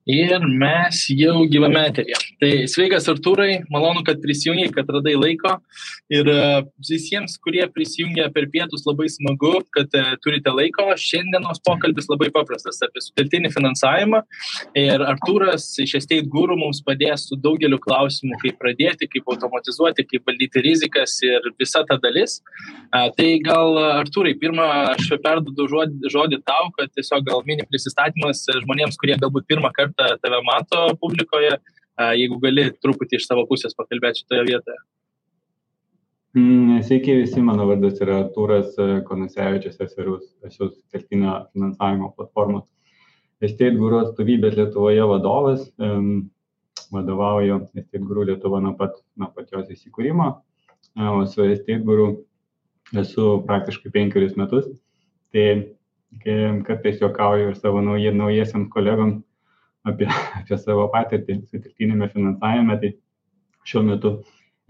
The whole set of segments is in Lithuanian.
Ir mes jau gyvame eteryje. Tai sveikas Artūrai, malonu, kad prisijungiai, kad radai laiko. Ir visiems, kurie prisijungia per pietus, labai smagu, kad turite laiko. Šiandienos pokalbis labai paprastas apie sutelktinį finansavimą. Ir Artūras iš Estate Guru mums padės su daugeliu klausimų, kaip pradėti, kaip automatizuoti, kaip valdyti rizikas ir visa ta dalis. Tai gal, Artūrai, pirmą aš perduodu žodį tau, kad tiesiog gal mini prisistatymas žmonėms, kurie galbūt pirmą kartą tave mato publikoje, jeigu gali truputį iš savo pusės pakalbėti šitoje vietoje. Sveiki visi, mano vardas yra Artūras Konasevičius, esu sutelktinio finansavimo platformos Estate Guru atstovybės Lietuvoje vadovas. Vadovauju Estate Guru Lietuva nuo pat jos įsikūrimo. O su Estate Guru esu praktiškai 5 metus. Tai kartais juokauju ir savo naujiesiams kolegom apie savo patirtį sutelktinėme finansavime. Tai šiuo metu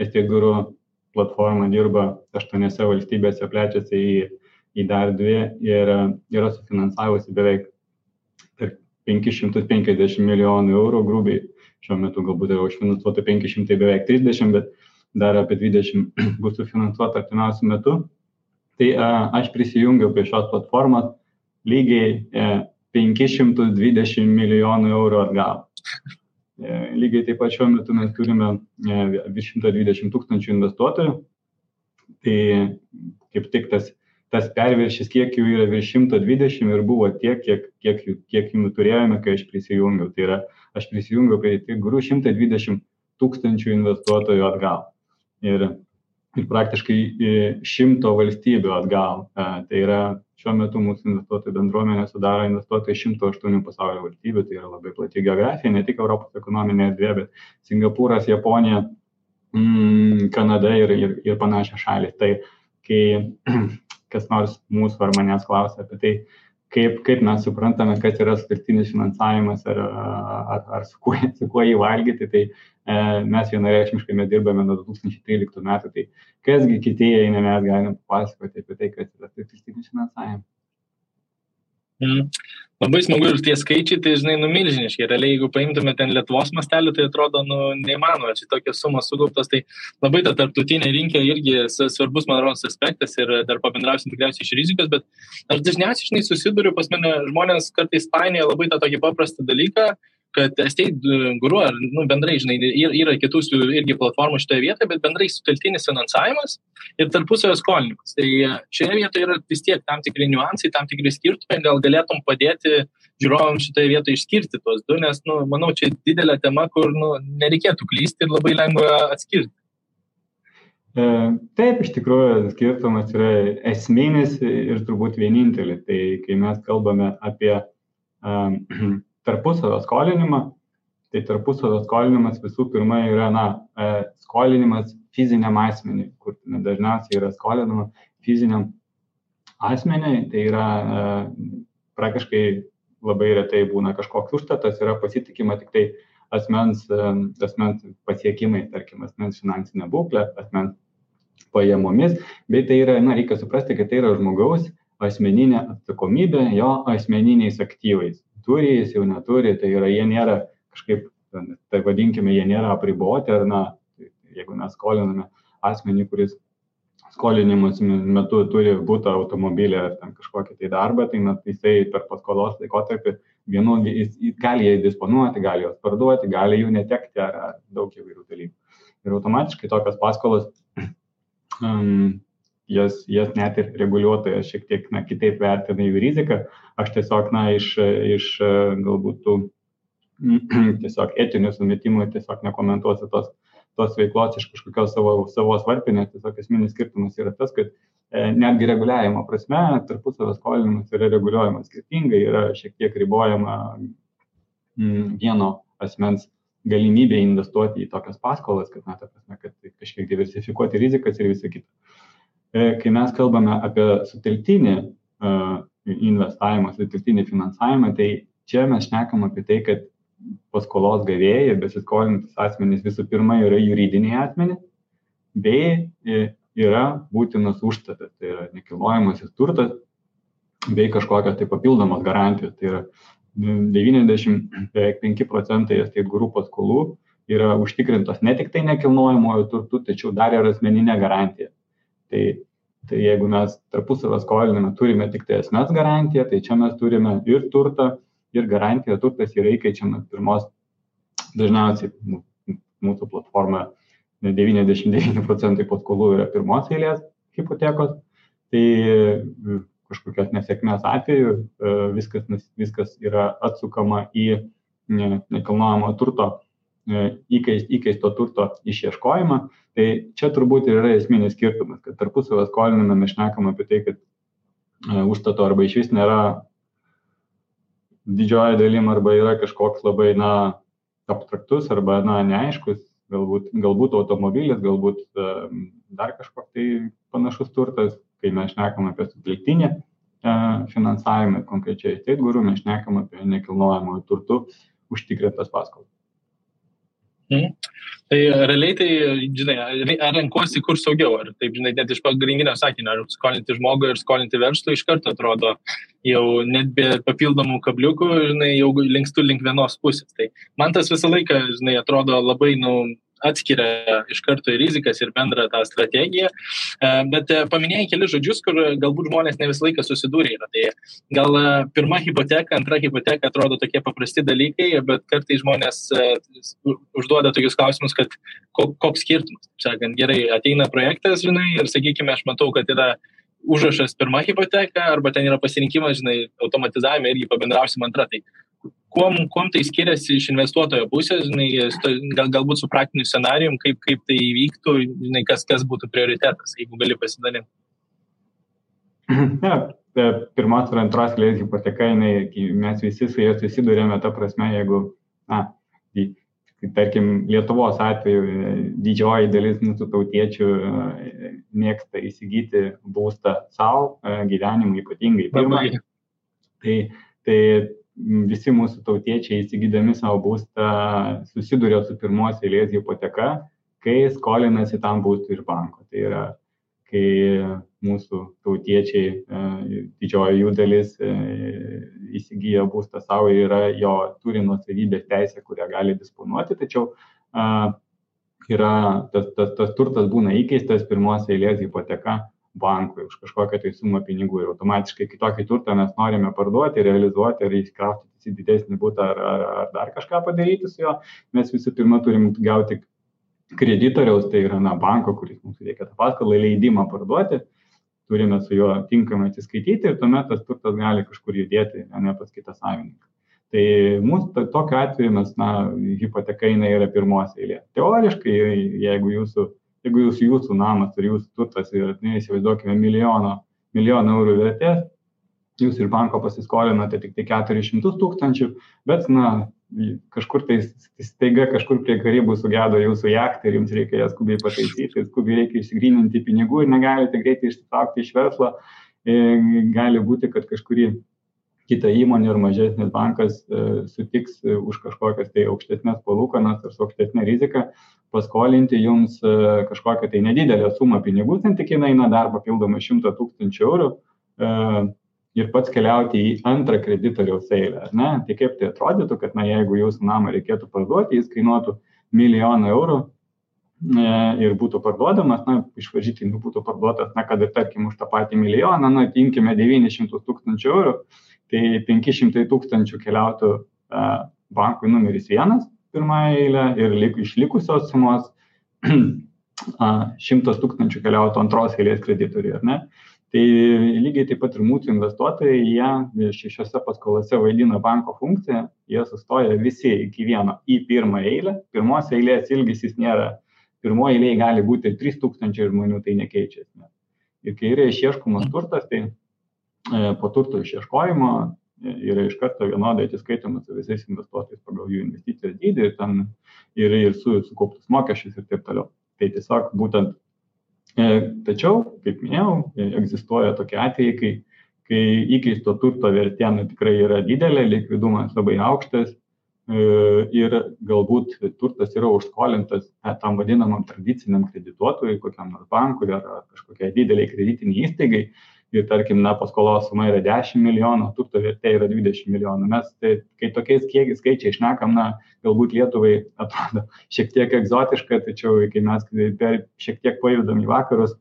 Estate Guru platforma dirba 8 valstybėse, plečiasi į dar 2 ir yra sufinansavusi beveik 550 milijonų eurų grubiai. Šiuo metu galbūt yra užfinansuota 500, beveik 30, bet dar apie 20 bus sufinansuota artimiausiu metu. Tai aš prisijungiau prie šios platformos lygiai 520 milijonų eurų atgal. Lygiai taip pat šiuo metu mes turime virš 120 tūkstančių investuotojų. Tai kaip tik tas perviršis, kiek jų yra virš 120 ir buvo tiek, kiek jų turėjome, kai aš prisijungiau. Tai yra, aš prisijungiau prie Estate Guru 120 tūkstančių investuotojų atgal. Ir praktiškai 100 valstybių atgal. Tai yra, šiuo metu mūsų investuotojų bendruomenė sudaro investuotojai 108 pasaulio valstybių. Tai yra labai plati geografija, ne tik Europos ekonominė erdvė, bet Singapūras, Japonija, Kanada ir panašios šalys. Tai kai kas nors mūsų ar manęs klausia apie tai, kaip mes suprantame, kas yra sutelktinis finansavimas ar su kuo jį valgyti, tai mes vienareikšmiškai dirbame nuo 2013 metų. Tai kasgi kitieji, mes galime papasakoti apie tai, kas yra sutelktinis finansavimas. Labai smagu ir tie skaičiai, tai žinai, milžiniški. Realiai, jeigu paimtume ten Lietuvos mastelį, tai atrodo, neįmanoma, čia tokios sumos sugauptos, tai labai ta tarptautinė rinka irgi svarbus, man rodos, aspektas ir dar pabendrausim tikriausiai iš rizikos, bet aš dažniausiai, žinai, susiduriu, pas mane žmonės kartais painioja labai tą tokį paprastą dalyką, kad Estate Guru ar bendrai, žinai, yra kitų irgi platformų šitoje vietoje, bet bendrai sutelktinis finansavimas ir tarpusavio skolinimas. Tai šioje vietoje yra vis tiek tam tikri niuansai, tam tikri skirtumai, gal galėtum padėti žiūrovams šitoje vietoje išskirti tuos du, nes, manau, čia didelė tema, kur, nereikėtų klysti ir labai lengva atskirti. Taip, iš tikrųjų, skirtumas yra esminis ir turbūt vienintelis. Tai kai mes kalbame apie tarpusavio skolinimą, tai tarpusavio skolinimas visų pirma yra skolinimas fiziniam asmeniui, kur dažniausiai yra skolinama fiziniam asmeniui, tai yra praktiškai labai retai būna kažkoks užstatas, yra pasitikima tik tai asmens pasiekimai, tarkim, asmens finansinė būklė, asmens pajamomis, bet tai yra, reikia suprasti, kad tai yra žmogaus asmeninė atsakomybė jo asmeniniais aktyvais. Turi, jis jau neturi, tai yra, jie nėra kažkaip, tai vadinkime, jie nėra apriboti, ar jeigu mes skoliname asmenį, kuris skolinimus metu turi butą, automobilį ar ten kažkokį tai darbą, tai jisai per paskolos laikotarpį jis gali jais disponuoti, gali juos parduoti, gali jų netekti ar daug įvairių dalykų. Ir automatiškai tokios paskolos jas net ir reguliuotojas šiek tiek kitaip vertina jų riziką. Aš tiesiog iš galbūt tų tiesiog etinių sumetimų tiesiog nekomentuosiu tos veiklos iš kažkokios savo varpinės. Tiesiog esminis skirtumas yra tas, kad netgi reguliavimo prasme tarpusavio skolinimas yra reguliuojamas skirtingai, yra šiek tiek ribojama vieno asmens galimybė investuoti į tokias paskolas, kad kažkiek diversifikuoti rizikas ir visą kitą. Kai mes kalbame apie sutelktinį investavimą, sutelktinį finansavimą, tai čia mes šnekam apie tai, kad paskolos gavėjai, besiskolintis asmenys visų pirma yra juridiniai asmenys, bei yra būtinas užstatas, tai yra nekilnojamasis turtas, bei kažkokios tai papildomos garantijos, tai yra 95% estate guru paskolų yra užtikrintos ne tik tai nekilnojamojo turtu, tačiau dar ir asmeninė garantija. Tai jeigu mes tarpusavio skoliname, turime tik tai asmens garantiją, tai čia mes turime ir turtą, ir garantiją. Turtas yra įkeičiamas pirmos, dažniausiai mūsų platformoje 99% paskolų yra pirmos eilės hipotekos. Tai kažkokios nesėkmės atveju viskas yra atsukama į nekilnojamo turto, įkeisto turto išieškojimą. Tai čia turbūt ir yra esminis skirtumas, kad tarpusavio skolinime mes šnekam apie tai, kad užstato arba išvis nėra didžioji dalim arba yra kažkoks labai abstraktus arba neaiškus, galbūt automobilis, galbūt dar kažkoks tai panašus turtas, kai mes šnekam apie sutelktinį finansavimą, konkrečiai estate guru, mes šnekam apie nekilnojamojo turtu užtikrintas paskolas. Tai realiai tai, žinai, ar renkuosi kur saugiau, ar taip, žinai, net iš pagrindinio sakinio, ar skolinti žmogui ir skolinti verslui iš karto atrodo jau net be papildomų kabliukų, žinai, jau linkstu link vienos pusės. Tai man tas visą laiką, žinai, atrodo labai, atskiria iš karto ir rizikas ir bendrą tą strategiją, bet paminėjai keli žodžius, kur galbūt žmonės ne visą laiką susidūrė yra. Tai gal pirma hipoteka, antra hipoteka atrodo tokie paprasti dalykai, bet kartais žmonės užduoda tokius klausimus, kad koks skirtumas. Sakant, gerai, ateina projektas, žinai, ir sakykime, aš matau, kad yra užrašas pirma hipoteka, arba ten yra pasirinkimas, žinai, automatizavime irgi pabendrausim antrą. Tai kuom tai skiriasi iš investuotojo pusės, žinai, galbūt su praktiniu scenarijum, kaip tai įvyktų, žinai, kas būtų prioritetas, jeigu gali pasidalinti. Pirmos ir antros eilės hipoteka, mes visi su jais susidurėme ta prasme, jeigu, tarkim, Lietuvos atveju didžioji dalis mūsų tautiečių mėgsta įsigyti būstą savo gyvenimui, ypatingai pirmą. Tai visi mūsų tautiečiai įsigydami savo būstą susiduria su pirmos eilės hipoteka, kai skolinasi tam būstui iš banko. Tai yra, kai mūsų tautiečiai, didžioji jų dalis įsigyja būstą savo ir jo turi nuosavybės teisę, kurią gali disponuoti, tačiau tas turtas būna įkeistas pirmos eilės hipoteka bankui už kažkokią tai sumą pinigų ir automatiškai kitokį turtą mes norime parduoti, realizuoti ar įsikraustyti į didesnį butą ar dar kažką padaryti su jo, mes visų pirma turim gauti kreditoriaus, tai yra banko, kuris mums reikia tą paskolą leidimą parduoti, turime su juo tinkamai atsiskaityti ir tuomet tas turtas gali kažkur judėti, ne pas kitą savininką. Tai mūsų tokiu atveju mes, hipoteka yra pirmos eilė. Teoriškai, jeigu jūsų namas ir jūsų turtas yra, įsivaizduokime, milijoną eurų vertės, jūs iš banko pasiskolinote tik tai 400 000, bet, kažkur tai staiga kažkur prie Karibų sugedo jūsų jachtą ir jums reikia ją skubiai pataisyti, skubiai reikia išsigryninti pinigų ir negalite greitai išsitraukti iš verslo, gali būti, kad kažkurį kitą įmonę ir mažesnis bankas sutiks už kažkokias tai aukštesnės palūkanas ar su aukštesnė rizika paskolinti jums kažkokią tai nedidelę sumą pinigų, santykinai dar papildomai 100 000 eurų ir pats keliauti į antrą kreditoriaus eilę. Tai kaip tai atrodytų, kad jeigu jūsų namą reikėtų parduoti, jis kainuotų 1 000 000 eurų ir būtų parduodamas, iš varžytinių būtų parduotas, kad ir tarkim už tą patį milijoną, imkime 900 000 eurų, tai 500 000 keliautų bankui numeris 1 pirmąją eilę ir išlikusios sumos 100 000 keliautų antros eilės kreditoriui, ar ne? Tai lygiai taip pat ir mūsų investuotojai, jie šiose paskolose vaidina banko funkciją, jie sustoja visi iki vieno į pirmą eilę, pirmos eilės ilgis jis nėra, pirmoji eilė gali būti 3000 žmonių, tai nekeičia. Ir kai yra išieškomas turtas, tai po turto išieškojimo yra iš karto vienodai atsiskaitoma su visais investuotojais pagal jų investicijos dydį ir sukauptus mokesčius ir taip toliau. Tai tiesiog būtent, tačiau, kaip minėjau, egzistuoja tokie atvejai, kai įkeisto turto vertė tikrai yra didelė, likvidumas labai aukštas ir galbūt turtas yra užskolintas tam vadinamam tradiciniam kredituotojui, kokiam nors bankui ar kažkokiai dideliai kreditiniai įstaigai. ir tarkim, paskolos suma yra 10 milijonų, turto vertė yra 20 milijonų. Mes, kai tokiais skaičiai šnekam, galbūt Lietuvai atrodo šiek tiek egzotiška, tačiau kai mes šiek tiek pajudam į vakarus,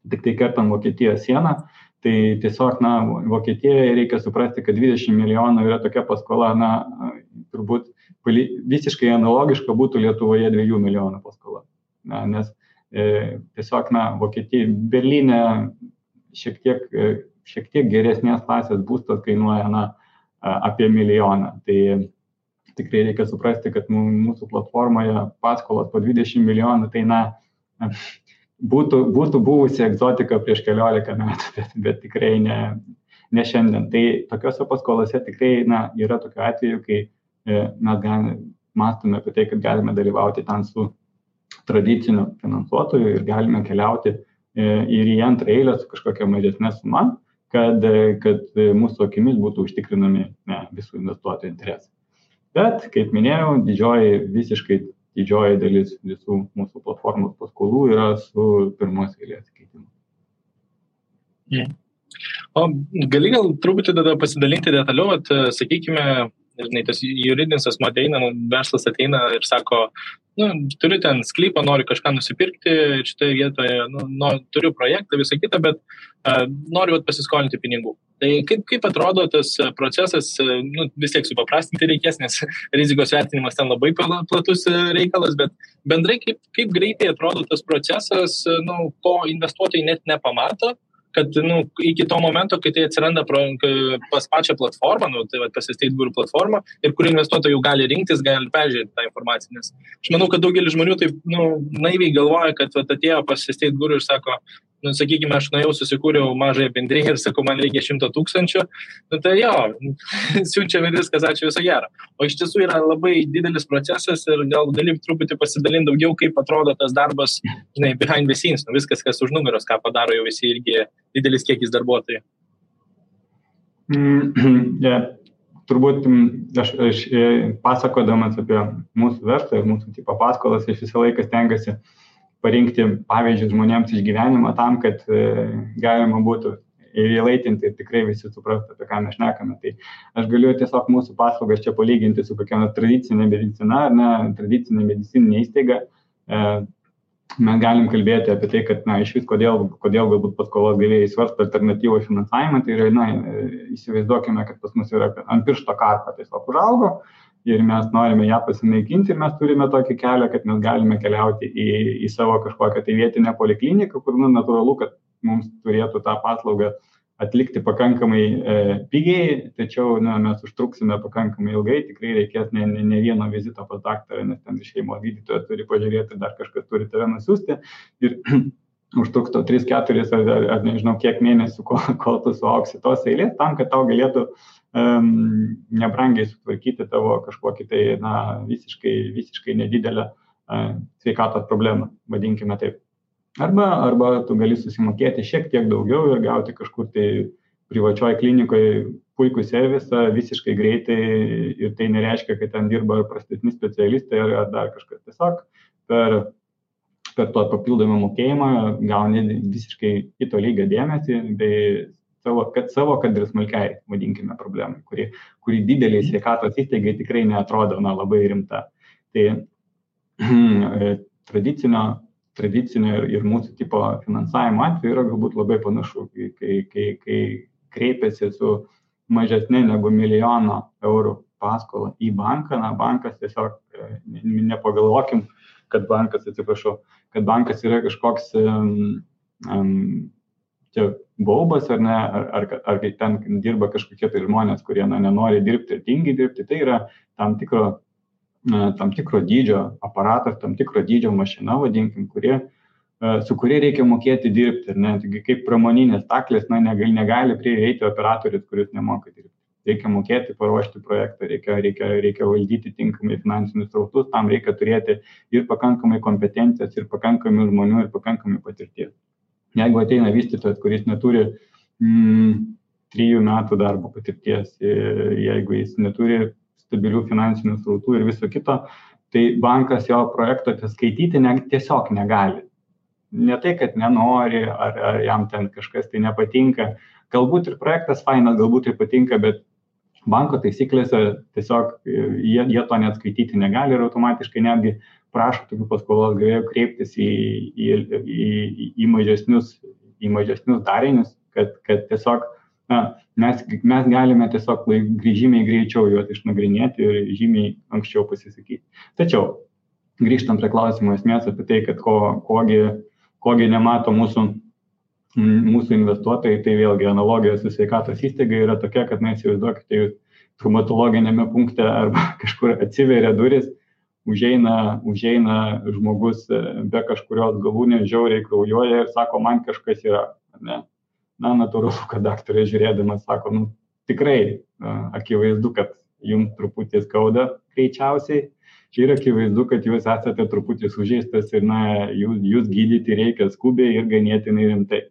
tik tai kertam Vokietijos sieną, tai tiesiog, Vokietijoje reikia suprasti, kad 20 milijonų yra tokia paskola, turbūt visiškai analogiška būtų Lietuvoje 2 milijonų paskola. Nes tiesiog, Vokietija, Berlyne šiek tiek geresnės klasės būstas kainuoja apie milijoną. Tai tikrai reikia suprasti, kad mūsų platformoje paskolos po 20 milijonų, tai būtų buvusi egzotika prieš 14 metų, bet tikrai ne šiandien. Tai tokiuose paskolose tikrai yra tokių atvejų, kai mes mąstome apie tai, kad galime dalyvauti ten su tradiciniu finansuotoju ir galime keliauti ir į antrą eilę su kažkokia mažesnė suma, kad mūsų akimis būtų užtikrinami visų investuotojų interesai. Bet, kaip minėjau, didžioji dalis visų mūsų platformos paskolų yra su pirmos eilės keitimu. O gali gal truputį tada pasidalinti detaliau, sakykime, tas juridinis asmuo ateina, verslas ateina ir sako, turiu ten sklypą, noriu kažką nusipirkti, šitoje vietoje, turiu projektą, visą kitą, bet noriu pasiskolinti pinigų. Tai kaip atrodo tas procesas, vis tiek supaprastinti reikės, nes rizikos vertinimas ten labai platus reikalas, bet bendrai kaip greitai atrodo tas procesas, ko investuotojai net nepamato, kad iki to momento, kai tai atsiranda pas pačią platformą, tai pas Estate Guru platformą, ir kur investuotojai jau gali rinktis, gali peržiūrėti tą informaciją. Nes aš manau, kad daugelis žmonių taip naiviai galvoja, kad atėjo pas Estate Guru ir sako, sakykime, aš nuėjau, susikūriau mažąją bendriją ir sakau, man reikia 100 000, tai jo, siunčiame viskas, ačiū, viso gero. O iš tiesų yra labai didelis procesas ir gal gali truputį pasidalinti daugiau, kaip atrodo tas darbas, behind the scenes, viskas, kas už nugaros, ką padaro jau visi irgi didelis kiekis darbuotojų. Turbūt aš pasakodamas apie mūsų verslą ir mūsų tipo paskolas, aš visą laiką stengiuosi parinkti pavyzdžius žmonėms iš gyvenimo tam, kad galima būtų įlaitinti ir tikrai visi suprastų, apie ką mes šnekame. Tai aš galiu tiesiog mūsų paslaugas čia palyginti su kokia tradicinė medicina, tradicinė medicininė įstaiga. Mes galim kalbėti apie tai, kad iš vis kodėl galbūt paskolos gavėjai svarsto alternatyvų finansavimą, tai yra, įsivaizduokime, kad pas mus yra ant piršto karpa tiesiog užaugo ir mes norime ją pasinaikinti ir mes turime tokį kelią, kad mes galime keliauti į savo kažkokią tai vietinę polikliniką, kur natūralu, kad mums turėtų tą paslaugą atlikti pakankamai pigiai, tačiau mes užtruksime pakankamai ilgai, tikrai reikės ne vieno vizito pas daktarą, nes ten šeimos gydytojas turi pažiūrėti, dar kažkas turi tave nusiųsti ir užtruks 3-4 ar nežinau kiek mėnesių, kol tu suauksi tos eilės, tam, kad tau galėtų nebrangiai sutvarkyti tavo kažkokį tai visiškai nedidelę sveikatos problemą, vadinkime taip. Arba tu gali susimokėti šiek tiek daugiau ir gauti kažkur tai privačioj klinikoje puikų servisą visiškai greitai ir tai nereiškia, kad ten dirba prastesni specialistai ar dar kažkas. Tiesiog per to papildomą mokėjimą gauni visiškai kito lygio dėmesį, bei kad ir smulkiai, vadinkime, problemai, kuri dideliai sveikatos įstaigai tikrai neatrodo labai rimta. Tai tradicinio ir mūsų tipo finansavimo atveju yra galbūt labai panašu, kai kreipiasi su mažesnė negu 1 milijono eurų paskolą į banką, bankas tiesiog nepagalvokim, kad bankas yra kažkoks baubas ar ne, ar ten dirba kažkokie tai žmonės, kurie nenori dirbti ir tingi dirbti, tai yra tam tikro dydžio aparatas, tam tikro dydžio mašina, vadinkim, su kuria reikia mokėti dirbti. Taigi kaip pramoninės staklės negali prieiti operatorius, kuris nemoka dirbti. Reikia mokėti paruošti projektą, reikia valdyti tinkamai finansinius srautus, tam reikia turėti ir pakankamai kompetencijos, ir pakankamai žmonių, ir pakankamai patirties. Jeigu ateina vystytojas, kuris neturi 3 metų darbo patirties, jeigu jis neturi stabilių finansinių srautų ir viso kito, tai bankas jo projekto skaityti tiesiog negali. ne tai, kad nenori, ar jam ten kažkas tai nepatinka. Galbūt ir projektas fainas, galbūt tai patinka, bet banko taisyklėse tiesiog jie to net skaityti negali ir automatiškai netgi prašo tokių paskolos gavėjų kreiptis į mažesnius darinius, kad tiesiog mes galime tiesiog žymiai greičiau juos išnagrinėti ir žymiai anksčiau pasisakyti. Tačiau grįžtant prie klausimo esmės apie tai, kad kogi nemato mūsų investuotojai, tai vėlgi analogija su sveikatos įstaiga yra tokia, kad įsivaizduokite, jūs traumatologinėme punkte arba kažkur atsiveria duris, užeina žmogus be kažkurios galūnės, žiauriai kraujuoja ir sako, man kažkas yra. Ne? Natūralu, kad daktarė žiūrėdamas sako, tikrai akivaizdu, kad jums truputį skauda greičiausiai. Ir akivaizdu, kad jūs esate truputį sužeistas ir jūs gydyti reikia skubiai ir ganėtinai rimtai.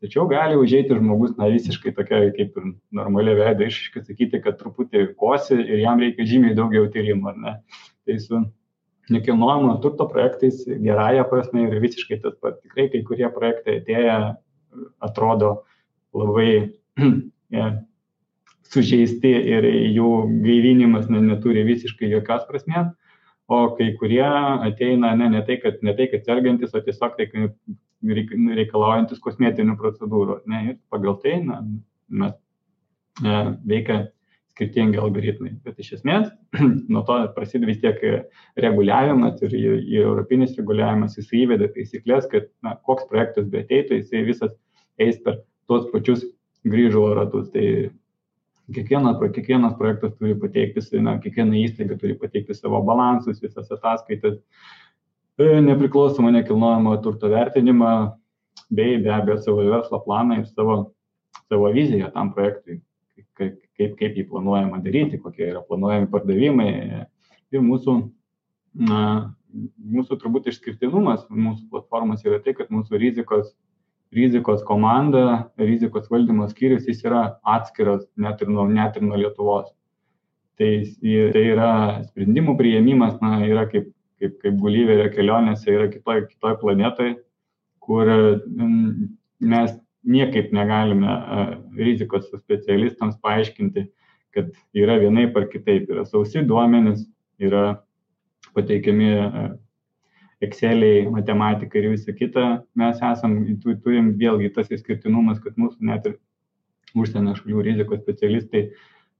Tačiau gali užeiti žmogus visiškai tokia kaip ir normalia veida išaiškai sakyti, kad truputį kosi ir jam reikia žymiai daugiau tyrimų, ar ne? Tai su nekilnojamo turto projektais gerąja prasme yra visiškai tas pats. Tikrai kai kurie projektai atėję atrodo labai sužeisti ir jų gaivinimas neturi visiškai jokios prasmės, o kai kurie ateina ne tai, kad sergantis, o tiesiog reikalaujantis kosmetinių procedūrų. Ir pagal tai mes veikia skirtingi algoritmai. Bet iš esmės, nuo to prasideda vis tiek reguliavimas ir europinis reguliavimas, jis įveda taisyklės, kad koks projektas be ateitų, jisai visas eis per tuos pačius grįžulo ratus. Tai kiekvienas projektas turi pateikti, kiekviena įstaiga turi pateikti savo balansus, visas ataskaitas, nepriklausomą nekilnojamo turto vertinimą, bei be abejo savo verslo planą ir savo viziją tam projektui, kaip jį planuojama daryti, kokie yra planuojami pardavimai. Ir mūsų turbūt išskirtinumas mūsų platformos yra tai, kad mūsų rizikos komanda, rizikos valdymo skyrius, jis yra atskiras net ir nuo Lietuvos. Tai yra sprendimų priėmimas, yra kaip Gulliverio kelionėse, yra kitoj planetoje, kur mes niekaip negalime rizikos specialistams paaiškinti, kad yra vienaip ar kitaip. Yra sausi duomenys, yra pateikiami Exceliai, matematika ir visa kita. Mes turim vėlgi tas išskirtinumas, kad mūsų net ir užsienio šalių rizikos specialistai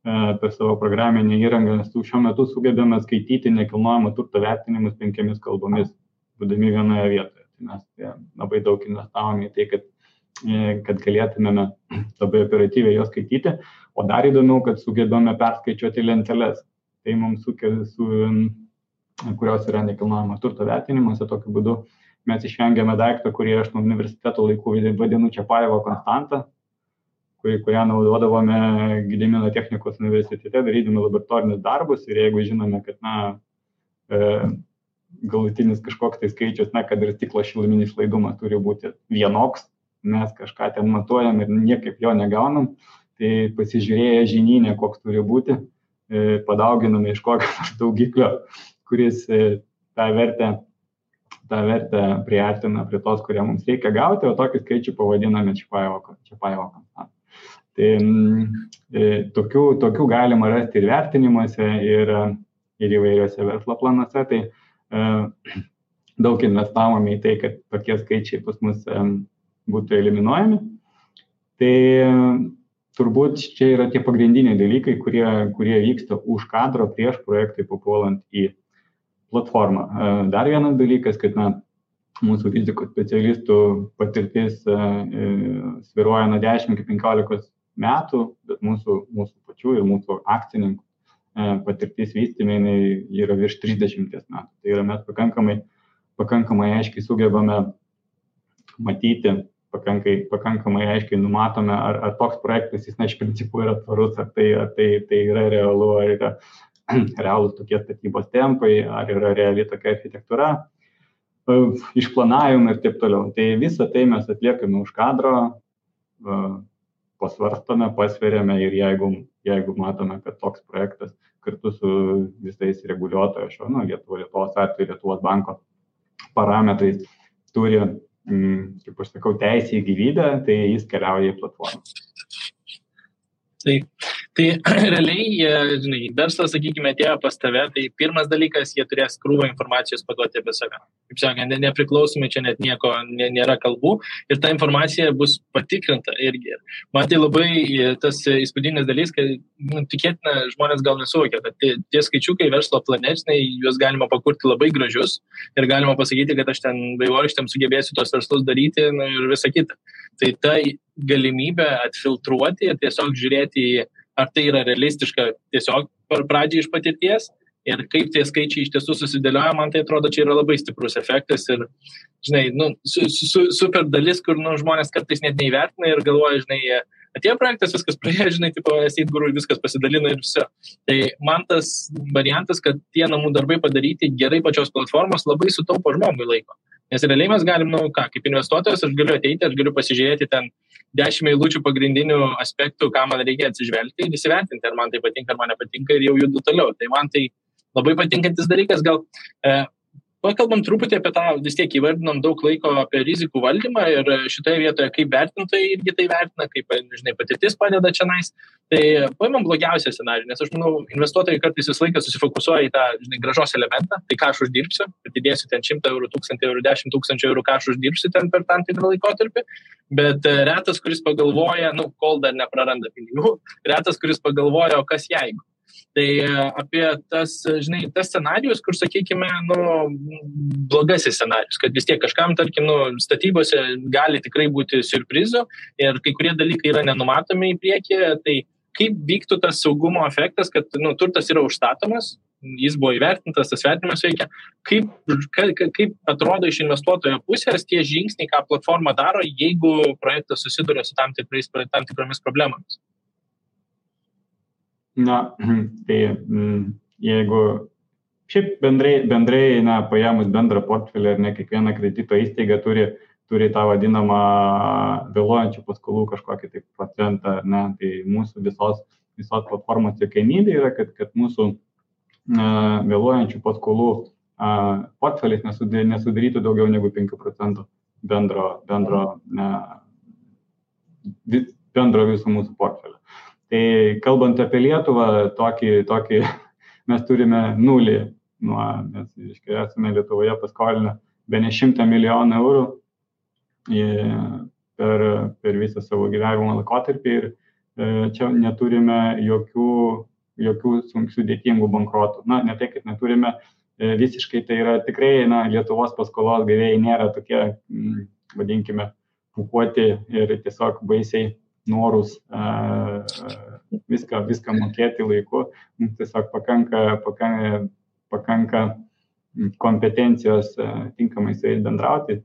per savo programinę įrangą šiuo metu sugebame skaityti nekilnojamo turto vertinimus 5 kalbomis, būdami vienoje vietoje. Tai mes labai daug investavome į tai, kad galėtumėme labai operatyviai jos skaityti, o dar įdomiau, kad sugebame perskaičiuoti lenteles. Tai mums kurios yra nekilnojamo turto vertinimuose. Tokiu būdu mes išvengiame daiktą, kurį aš nuo universiteto laikų vadinu Čiapajevo konstantą, kurią naudodavome Gedimino technikos universitete, darydami laboratorinius darbus, ir jeigu žinome, kad galutinis kažkoks tai skaičius, kad ir stiklo šiluminis laidumas turi būti vienoks, mes kažką ten matuojam ir niekaip jo negaunam, tai pasižiūrėję žinyne, koks turi būti, padauginame iš kokio daugiklio, kuris tą vertę priartina prie tos, kurią mums reikia gauti, o tokį skaičių pavadiname Čiapajevo konstantą. Tai tokių galima rasti ir vertinimuose, ir įvairiuose verslo planuose. Tai daug investavome į tai, kad tokie skaičiai pas mus būtų eliminuojami. Tai turbūt čia yra tie pagrindiniai dalykai, kurie vyksta už kadro prieš projektui papuolant į platformą. Dar vienas dalykas, kad mūsų rizikos specialistų patirtis svyruoja nuo 10 iki 15 metų, bet mūsų pačių ir mūsų akcininkų patirtis vystyme yra virš 30 metų. Tai yra mes pakankamai aiškiai sugebame matyti, pakankamai aiškiai numatome, ar toks projektas jis iš principų yra tvarus, ar tai yra realu, ar yra realūs tokie statybos tempai, ar yra reali tokia architektūra, išplanavimai ir taip toliau. Tai visą tai mes atliekame už kadro, pasvarstome, pasveriame, ir jeigu matome, kad toks projektas kartu su visais reguliuotojo Lietuvos atveju, Lietuvos banko parametrais turi kaip aš sakau, teisė į gyvybę, tai jis keliauja į platformą. Tai realiai, žinai, verslas, sakykime, atėjo pas tave, tai pirmas dalykas, jie turės krūvą informacijos paduoti apie save. Kaip sakant, nepriklausomai čia net nieko nėra kalbų ir ta informacija bus patikrinta irgi. Man tai labai tas įspūdingas dalykas, kad tikėtina žmonės gal nesuvokia, kad tie skaičiukai verslo plane, juos galima pakurti labai gražius ir galima pasakyti, kad aš ten vaivorykštėm sugebėsiu tos verslus daryti ir visą kitą. Tai ta galimybė atfiltruoti ir tiesiog žiūrėti, ar tai yra realistiška tiesiog pradžiai iš patirties ir kaip tie skaičiai iš tiesų susidėlioja, man tai atrodo, čia yra labai stiprus efektas ir, žinai, super dalis, kur žmonės kartais net neįvertina ir galvoja, žinai, atėjo projektas, viskas praėjo, žinai, tipo, Estate Guru, viskas pasidalino ir viso. Tai man tas variantas, kad tie namų darbai padaryti gerai pačios platformos, labai sutaupo žmogui laiko. Nes realiai mes galim, kaip investuotojas, aš galiu ateiti, aš galiu pasižiūrėti ten 10 eilučių pagrindinių aspektų, ką man reikia atsižvelgti ir įsivertinti, ar man tai patinka, ar man nepatinka ir jau judu toliau. Tai man tai labai patinkantis dalykas. Gal pakalbam truputį apie tą, vis tiek įvardinom daug laiko apie rizikų valdymą ir šitoje vietoje, kaip vertintojai irgi tai vertina, kaip, žinai, patirtis padeda čionais. Tai paimam blogiausią scenarijų, nes aš manau, investuotojai kartais visą laiką susifokusuoja į tą, žinai, grąžos elementą, tai ką aš uždirbsiu, atidėsiu ten 100 eurų, 1000 eurų, 10 000 eurų, ką aš uždirbsiu ten per tam tikrą laikotarpį, bet retas, kuris pagalvoja, kol dar nepraranda pinigų, retas, kuris pagalvoja, o kas jeigu. Tai apie tas, žinai, tas scenarijus, kur, sakykime, blogasis scenarijus, kad vis tiek kažkam, tarkim, statybose gali tikrai būti siurprizų ir kai kurie dalykai yra nenumatomi į priekį, tai kaip vyktų tas saugumo efektas, kad turtas yra užstatomas, jis buvo įvertintas, tas vertinimas veikia, kaip atrodo iš investuotojo pusės tie žingsniai, ką platforma daro, jeigu projektas susiduria su tam tikromis problemomis. Tai jeigu šiaip bendrai paėmus bendrą portfelį ir ne kiekviena kredito įstaiga turi tą vadinamą vėluojančių paskolų kažkokį tai procentą, tai mūsų visos platformos siekiamybė yra, kad mūsų vėluojančių paskolų portfelis nesudarytų daugiau negu 5% bendro viso mūsų portfelio. Tai kalbant apie Lietuvą, tokį mes turime nulį, mes esame Lietuvoje paskolinę bene 100 milijonų eurų per visą savo gyvenimo laikotarpį ir čia neturime jokių sudėtingų bankrotų. Ne tai, kad neturime visiškai, tai yra tikrai, Lietuvos paskolos gavėjai nėra tokie, vadinkime, pūkuoti ir tiesiog baisiai norus viską mokėti laiku. Mums tiesiog pakanka kompetencijos tinkamai su jais bendrauti,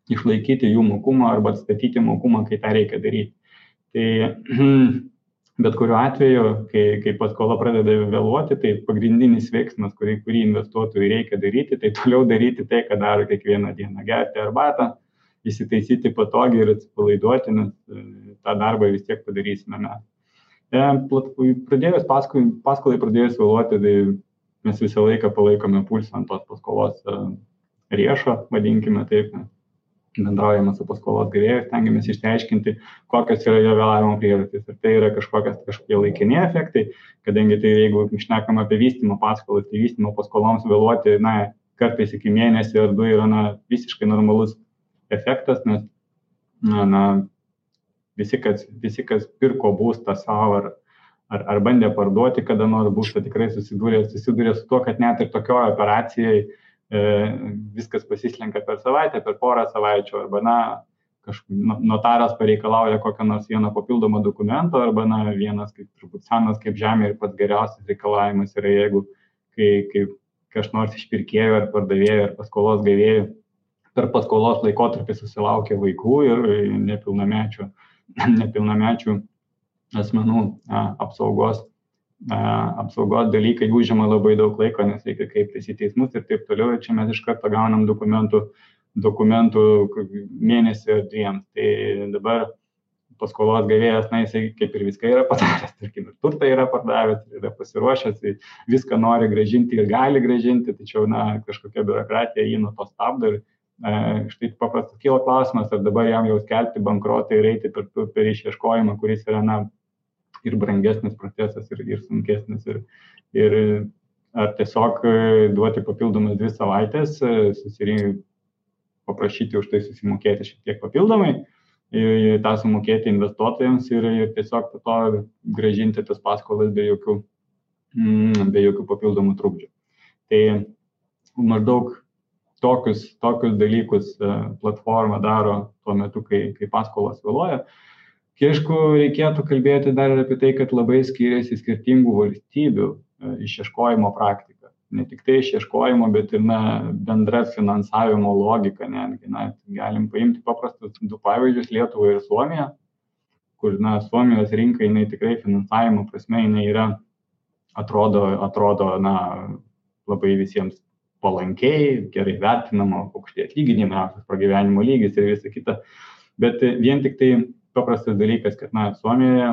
išlaikyti jų mokumą arba atstatyti mokumą, kai tą reikia daryti. Tai bet kuriuo atveju, kai paskola pradeda vėluoti, tai pagrindinis veiksmas, kurį investuotojui reikia daryti, tai toliau daryti tai, ką daro kiekvieną dieną, gerti arbatą, įsitaisyti patogiai ir atsipalaiduoti, nes tą darbą vis tiek padarysime mes. Paskolai pradėjus vėluoti, tai mes visą laiką palaikome pulsą ant tos paskolos riešo, vadinkime taip, bendraujame su paskolos gavėju, stengiamės išsiaiškinti, kokios yra jo vėlavimo priežastys. Ir tai yra kažkokie laikini efektai, kadangi tai jeigu šnekam apie vystymo paskolas, tai vystymo paskoloms vėluoti, kartais iki mėnesį ar 2 yra visiškai normalus efektas, nes visi, kas pirko būstą savo ar bandė parduoti kada nors būstą, tikrai susidūrė su tuo, kad net ir tokioje operacijoje viskas pasislenka per savaitę, per porą savaičių, arba notaras pareikalauja kokią nors vieną papildomą dokumento, arba vienas kaip turbūt senas kaip žemė ir pats geriausias reikalavimas yra, jeigu kai kas nors iš pirkėjų ar pardavėjų ar paskolos gavėjų per paskolos laikotarpį susilaukia vaikų ir nepilnamečių asmenų apsaugos dalykai užima labai daug laiko, nes reikia kreiptis į teismus ir taip toliau. Ir čia mes iš karto gaunam dokumentų mėnesį ar 2. Tai dabar paskolos gavėjas, jisai kaip ir viską yra padaręs, tarkim, ir turtą yra pardavęs, yra pasiruošęs, viską nori grąžinti ir gali grąžinti, tačiau kažkokia biurokratija jį nuo to stabdo ir Štai paprastas kyla klausimas, ar dabar jam jau skelbti bankrotą ir eiti per išieškojimą, kuris yra ir brangesnis procesas, ir sunkesnis, ir ar tiesiog duoti papildomas 2 savaitės, paprašyti už tai susimokėti šiek tiek papildomai, tą sumokėti investuotojams ir tiesiog po to grąžinti tas paskolas be jokių papildomų trukdžių. Tai maždaug tokius dalykus platforma daro tuo metu, kai paskolos vėluoja. Aišku, reikėtų kalbėti dar ir apie tai, kad labai skiriasi skirtingų valstybių išieškojimo praktika. Ne tik tai išieškojimo, bet ir bendra finansavimo logika. Galim paimti paprastus 2 pavyzdžius, Lietuvą ir Suomiją, kur Suomijos rinka, jinai tikrai finansavimo prasme, jinai yra, atrodo labai visiems palankiai, gerai vertinama, aukšti atlyginimai, aukštas pragyvenimo lygis ir visa kita. Bet vien tik tai paprastas dalykas, kad Suomijoje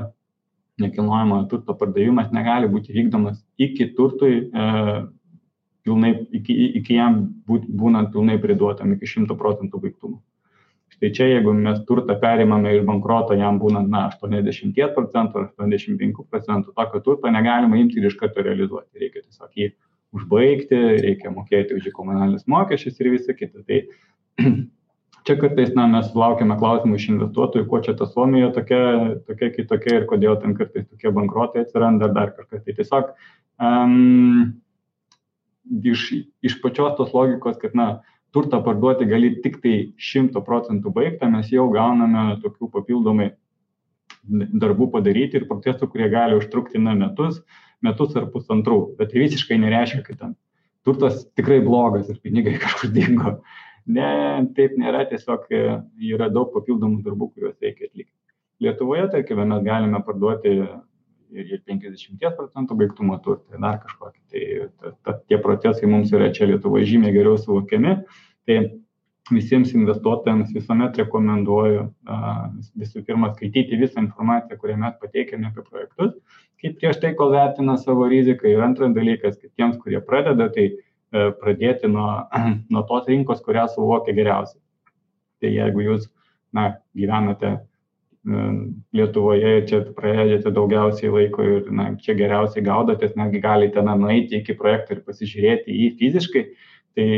nekilnojamojo turto pardavimas negali būti vykdomas iki turtui iki jam būnant pilnai priduotam, iki 100% baigtumo. Štai čia, jeigu mes turtą perimame iš bankroto, jam būnant 80% ar 85%, tokio turto negalima imti ir iš karto realizuoti. Reikia tiesiog jį užbaigti, reikia mokėti už komunalinius mokesčius ir visą kitą. Tai čia kartais mes laukiame klausimų iš investuotojų, kuo čia ta Suomija tokia kitokia ir kodėl ten kartais tokie bankrotai atsiranda ar dar kažkas. Tai tiesiog iš pačios tos logikos, kad turtą parduoti gali tik tai 100% baigtą, mes jau gauname tokių papildomai darbų padaryti ir procesų, kurie gali užtrukti metus ar pusantrų. Bet tai visiškai nereiškia, kad ten turtas tikrai blogas ir pinigai kažkur dingo. Ne, taip nėra, tiesiog yra daug papildomų darbų, kuriuos reikia atlikti. Lietuvoje, tarkime, mes galime parduoti ir 50% baigtumo turtą, dar kažkokį. Tai tie procesai mums yra čia Lietuvoje žymiai geriau suvokiami. Tai visiems investuotojams visuomet rekomenduoju visų pirma skaityti visą informaciją, kurią mes pateikėme apie projektus, kaip prieš tai, kol vertina savo riziką. Ir antras dalykas, kad tiems, kurie pradeda, tai pradėti nuo tos rinkos, kurią suvokia geriausiai. Tai jeigu jūs gyvenate Lietuvoje ir čia praėdėte daugiausiai laiko ir čia geriausiai gaudotės, netgi galite nueiti iki projekto ir pasižiūrėti jį fiziškai, tai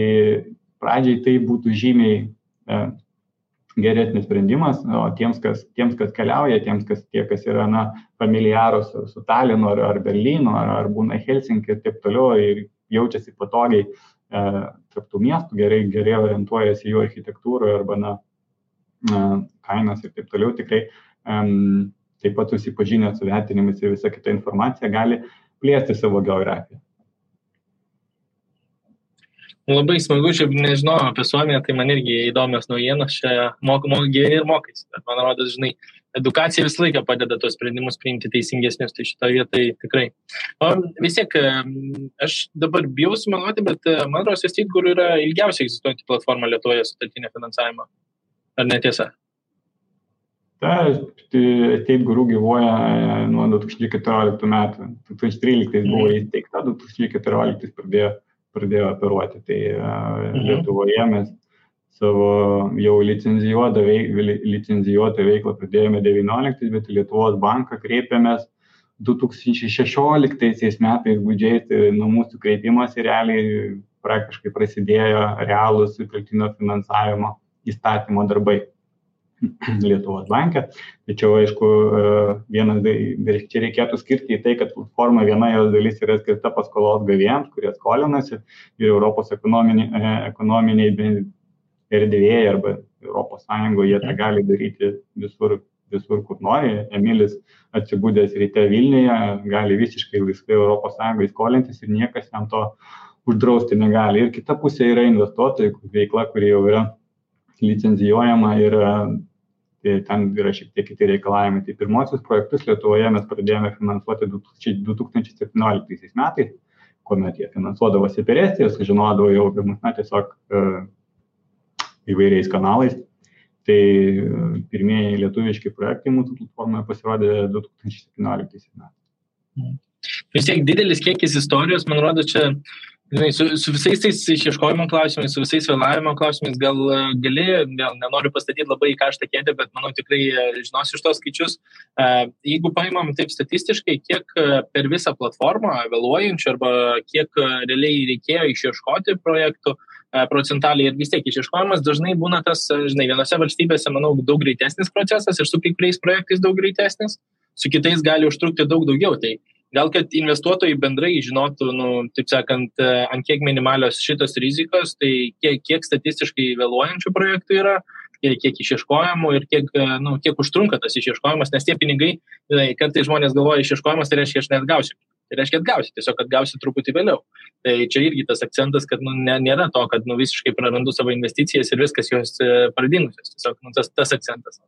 pradžiai tai būtų žymiai geresnis sprendimas, o tiems, kas keliauja, tie, kas yra familiarūs su Talinu ar Berlynu, ar būna Helsinki ir taip toliau ir jaučiasi patogiai tarp tų miestų, gerai orientuojasi jų architektūroje arba kainas ir taip toliau, tikrai taip pat susipažinę su vertinimais ir visą kitą informaciją gali plėsti savo geografiją. Labai smagu, šiaip nežinau apie Suomiją, tai man irgi įdomios naujienos, čia gyveni ir mokais. Bet man rodos, edukacija visą laiką padeda tos sprendimus priimti teisingesnius, tai šitoje vietoje tikrai. O vis tiek, aš dabar bijau sumeluoti, bet man rodos, kur yra ilgiausiai egzistuojanti platforma Lietuvoje sutartinio finansavimo. Ar netiesa? Estate Guru gyvuoja nuo 2014 metų. 2013 buvo įsteigta, 2014 pradėjo operuoti. Tai Lietuvoje mes savo jau licencijuotą veiklą pradėjome 2019, bet į Lietuvos banką kreipėmės 2016 metais gudžiais, tai nuo mūsų kreipimas realiai praktiškai prasidėjo realūs sutelktinio finansavimo įstatymo darbai Lietuvos banke. Tačiau, aišku, čia reikėtų skirti į tai, kad platforma viena jos dalis yra skirta paskolos gavėjams, kurie skolinasi ir Europos ekonominiai erdvėje arba Europos Sąjungoje jie tą gali daryti visur, kur nori. Emilis atsibūdęs ryte Vilniuje gali visiškai laisvai Europos Sąjungoje skolintis ir niekas jam to uždrausti negali. Ir kita pusė yra investuotojų veikla, kuri jau yra licencijuojama ir ten yra šiek tiek kiti reikalavimai. Tai pirmosius projektus Lietuvoje mes pradėjome finansuoti 2017 metais, kuomet jie finansuodavosi per Estiją, sužinodavo jau apie mus tiesiog įvairiais kanalais. Tai pirmieji lietuviški projektai mūsų platformoje pasirodė 2017 metais. Vis tiek didelis kiekis istorijos, man rodo, čia Žinai, su visais tais išieškojimo klausimais, su visais vėlavimo klausimais gal gali, nenoriu pastatyti labai į karštą kėdę, bet manau tikrai žinosi iš tos skaičius. Jeigu paimam taip statistiškai, kiek per visą platformą vėluojančių arba kiek realiai reikėjo išieškoti projektų procentaliai ir vis tiek išieškojimas dažnai būna tas, žinai, vienose valstybėse, manau, daug greitesnis procesas ir su kai kuriais projektais daug greitesnis, su kitais gali užtrukti daug daugiau. Tai gal, kad investuotojai bendrai žinotų, taip sakant, ant kiek minimalios šitos rizikos, tai kiek statistiškai vėluojančių projektų yra, kiek išieškojimų ir kiek užtrunka tas išieškojimas, nes tie pinigai, kartais žmonės galvoja, išieškojimas tai reiškia, aš neatgausiu. Tai reiškia atgausi, tiesiog atgausi truputį vėliau. Tai čia irgi tas akcentas, kad nėra to, kad visiškai prarandu savo investicijas ir viskas jos pradingusios. Tiesiog tas akcentas.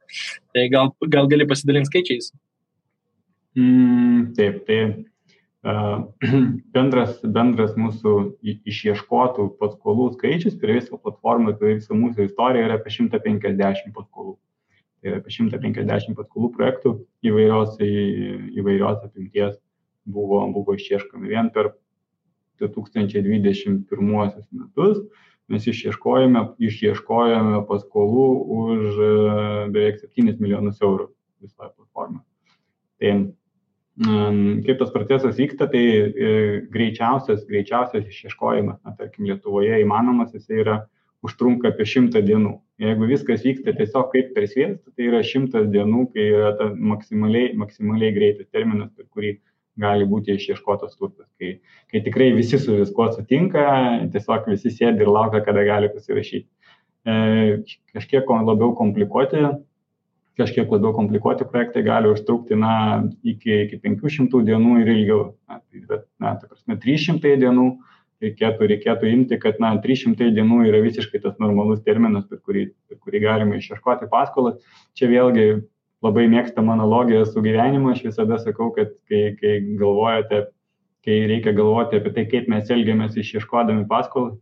Tai gal gali pasidalinti skaičiais. Taip, tai bendras mūsų išieškotų paskolų skaičius per visą platformą, per visą mūsų istoriją yra apie 150 paskolų. Tai yra apie 150 paskolų projektų įvairios apimties buvo išieškomi. Vien per 2021 metus mes išieškojame paskolų už beveik 7 milijonus eurų visoje platformoje. Tai kaip tas procesas vyksta, tai greičiausias išieškojimas, tarkim, Lietuvoje įmanomas, jis užtrunka apie 100 dienų. Jeigu viskas vyksta tiesiog kaip per sviestą, tai yra 100 dienų, kai yra ta maksimaliai greitas terminas, per kurį gali būti išieškotas turtas. Kai tikrai visi su viskuo sutinka, tiesiog visi sėdi ir laukia, kada gali pasirašyti. Kažkiek labiau komplikuoti projektai gali užtrukti iki 500 dienų ir ilgiau. Bet, ta prasme, 300 dienų reikėtų imti, kad 300 dienų yra visiškai tas normalus terminas, per kurį galima išieškoti paskolas. Čia vėlgi labai mėgstama analogija su gyvenimu. Aš visada sakau, kad kai reikia galvoti apie tai, kaip mes elgiamės išieškodami paskolas,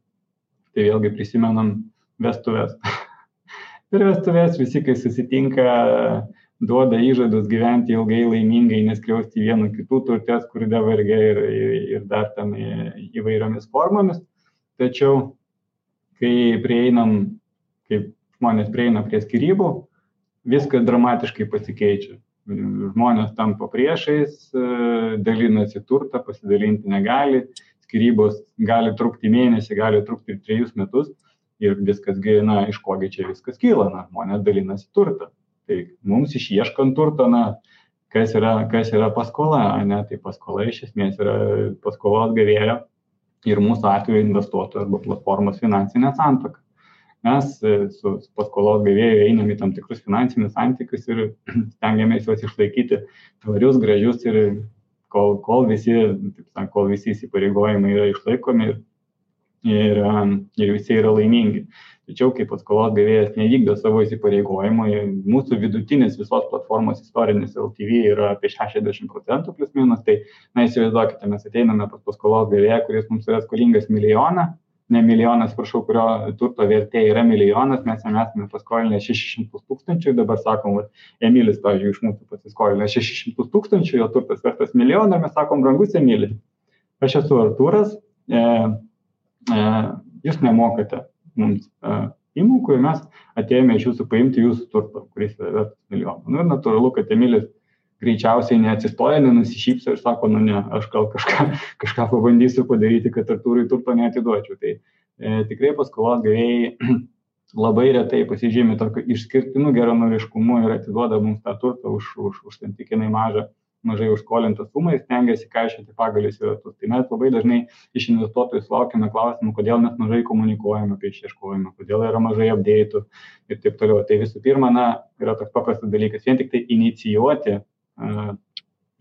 tai vėlgi prisimenam vestuves. Per vestuves visi, kai susitinka, duoda įžadus gyventi ilgai, laimingai, neskriausti vienų kitų turtės, kur davargia ir dar ten įvairiomis formomis. Tačiau, kai žmonės prieina prie skyrybų, viskas dramatiškai pasikeičia. Žmonės tampa priešais, dalinasi turtą, pasidalinti negali, skyrybos gali trukti mėnesį, gali trukti ir 3 metus. Ir viskas, iš kogi čia viskas kyla, žmonės dalinasi turtą. Tai mums išieškant turtą, kas yra paskola, tai paskola iš esmės yra paskolos gavėjo ir mūsų atveju investuotojų arba platformos finansinė santuoka. Mes su paskolos gavėjų einam į tam tikrus finansinius santykius ir stengiamės juos išlaikyti tvarius, gražius ir kol visi įsipareigojimai yra išlaikomi ir visi yra laimingi. Tačiau, kai paskolos gavėjas nevykdo savo įsipareigojimų, mūsų vidutinis visos platformos istorinis LTV yra apie 60% plus minus, tai, įsivaizduokite, mes ateiname pas paskolos gavėją, kuris mums yra skolingas milijonas, kurio turto vertė yra milijonas, mes jam esame paskolinę 600 000, dabar sakom, Emilis, pavyzdžiui, iš mūsų pasiskolinę 600 000, jo turtas vertas milijoną, mes sakom, brangus Emilis. Aš esu Artūras, jūs nemokate mums įmokų ir mes atėjome iš jūsų paimti jūsų turtą, kuris yra vertas milijoną. Ir natūralu, kad Emilis greičiausiai neatsistoja, nenusišypso ir sako, ne, aš gal kažką pabandysiu padaryti, kad Artūrui turto neatiduočiau. Tai tikrai paskolos gavėjai labai retai pasižymi tokio išskirtinų geranoriškumu ir atiduoda mums tą turtą už santykinai mažai užskolintą sumą ir stengiasi kaišioti pagalius į ratus. Tai mes labai dažnai iš investuotojų sulaukime klausimų, kodėl mes mažai komunikuojame apie išieškojimą, kodėl yra mažai update'ų ir taip toliau. Tai visų pirma, yra toks paprastas dalykas, vien tik tai inicijuoti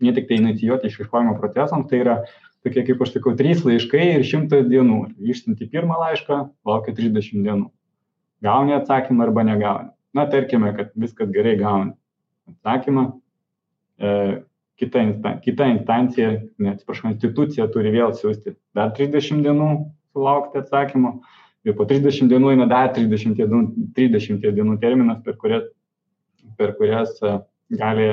išieškojimo procesams, tai yra tokie, kaip aš sakau, 3 laiškai ir 100 dienų. Išsiunti pirmą laišką, laukia 30 dienų. Gauni atsakymą arba negauni. Tarkime, kad viskas gerai gauni atsakymą. Kita instancija, institucija turi vėl siųsti dar 30 dienų sulaukti atsakymą ir po 30 dienų eina dar 30 dienų terminas, per kurias gali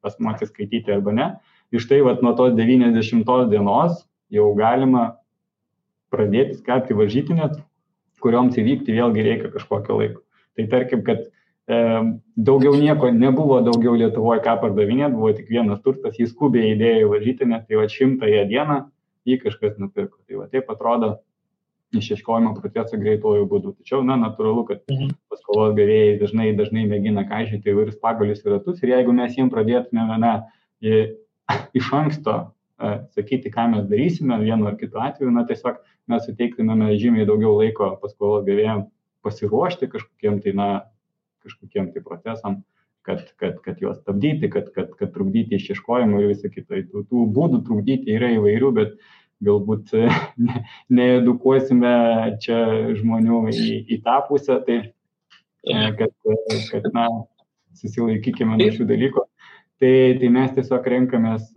asmuo atsiskaityti arba ne. Ir štai nuo tos 90 dienos jau galima pradėti skelbti varžytinės, kurioms įvykti vėlgi reikia kažkokio laiko. Tai tarkim, kad daugiau nieko nebuvo daugiau Lietuvoje ką pardavinėti, buvo tik vienas turtas, jis skubiai įdėjo į varžytinę, tai 100 dieną jį kažkas nupirko. Tai taip atrodo išieškojimo procesą greituoju būdu. Tačiau, natūralu, kad paskolos gavėjai dažnai mėgina kaišyti įvairius pagalius ir ratus ir jeigu mes jiems pradėtume iš anksto sakyti, ką mes darysime vienu ar kitu atveju, tiesiog mes suteiktumėme žymiai daugiau laiko paskolos gavėjams pasiruošti kažkokiem tai procesam, kad juos stabdyti, kad trukdyti išieškojimą ir visą kitą. Tų būdų trukdyti yra įvairių, bet galbūt needukuosime čia žmonių į tą pusę, tai kad susilaikykime nuo šių dalykų. Tai mes tiesiog renkamės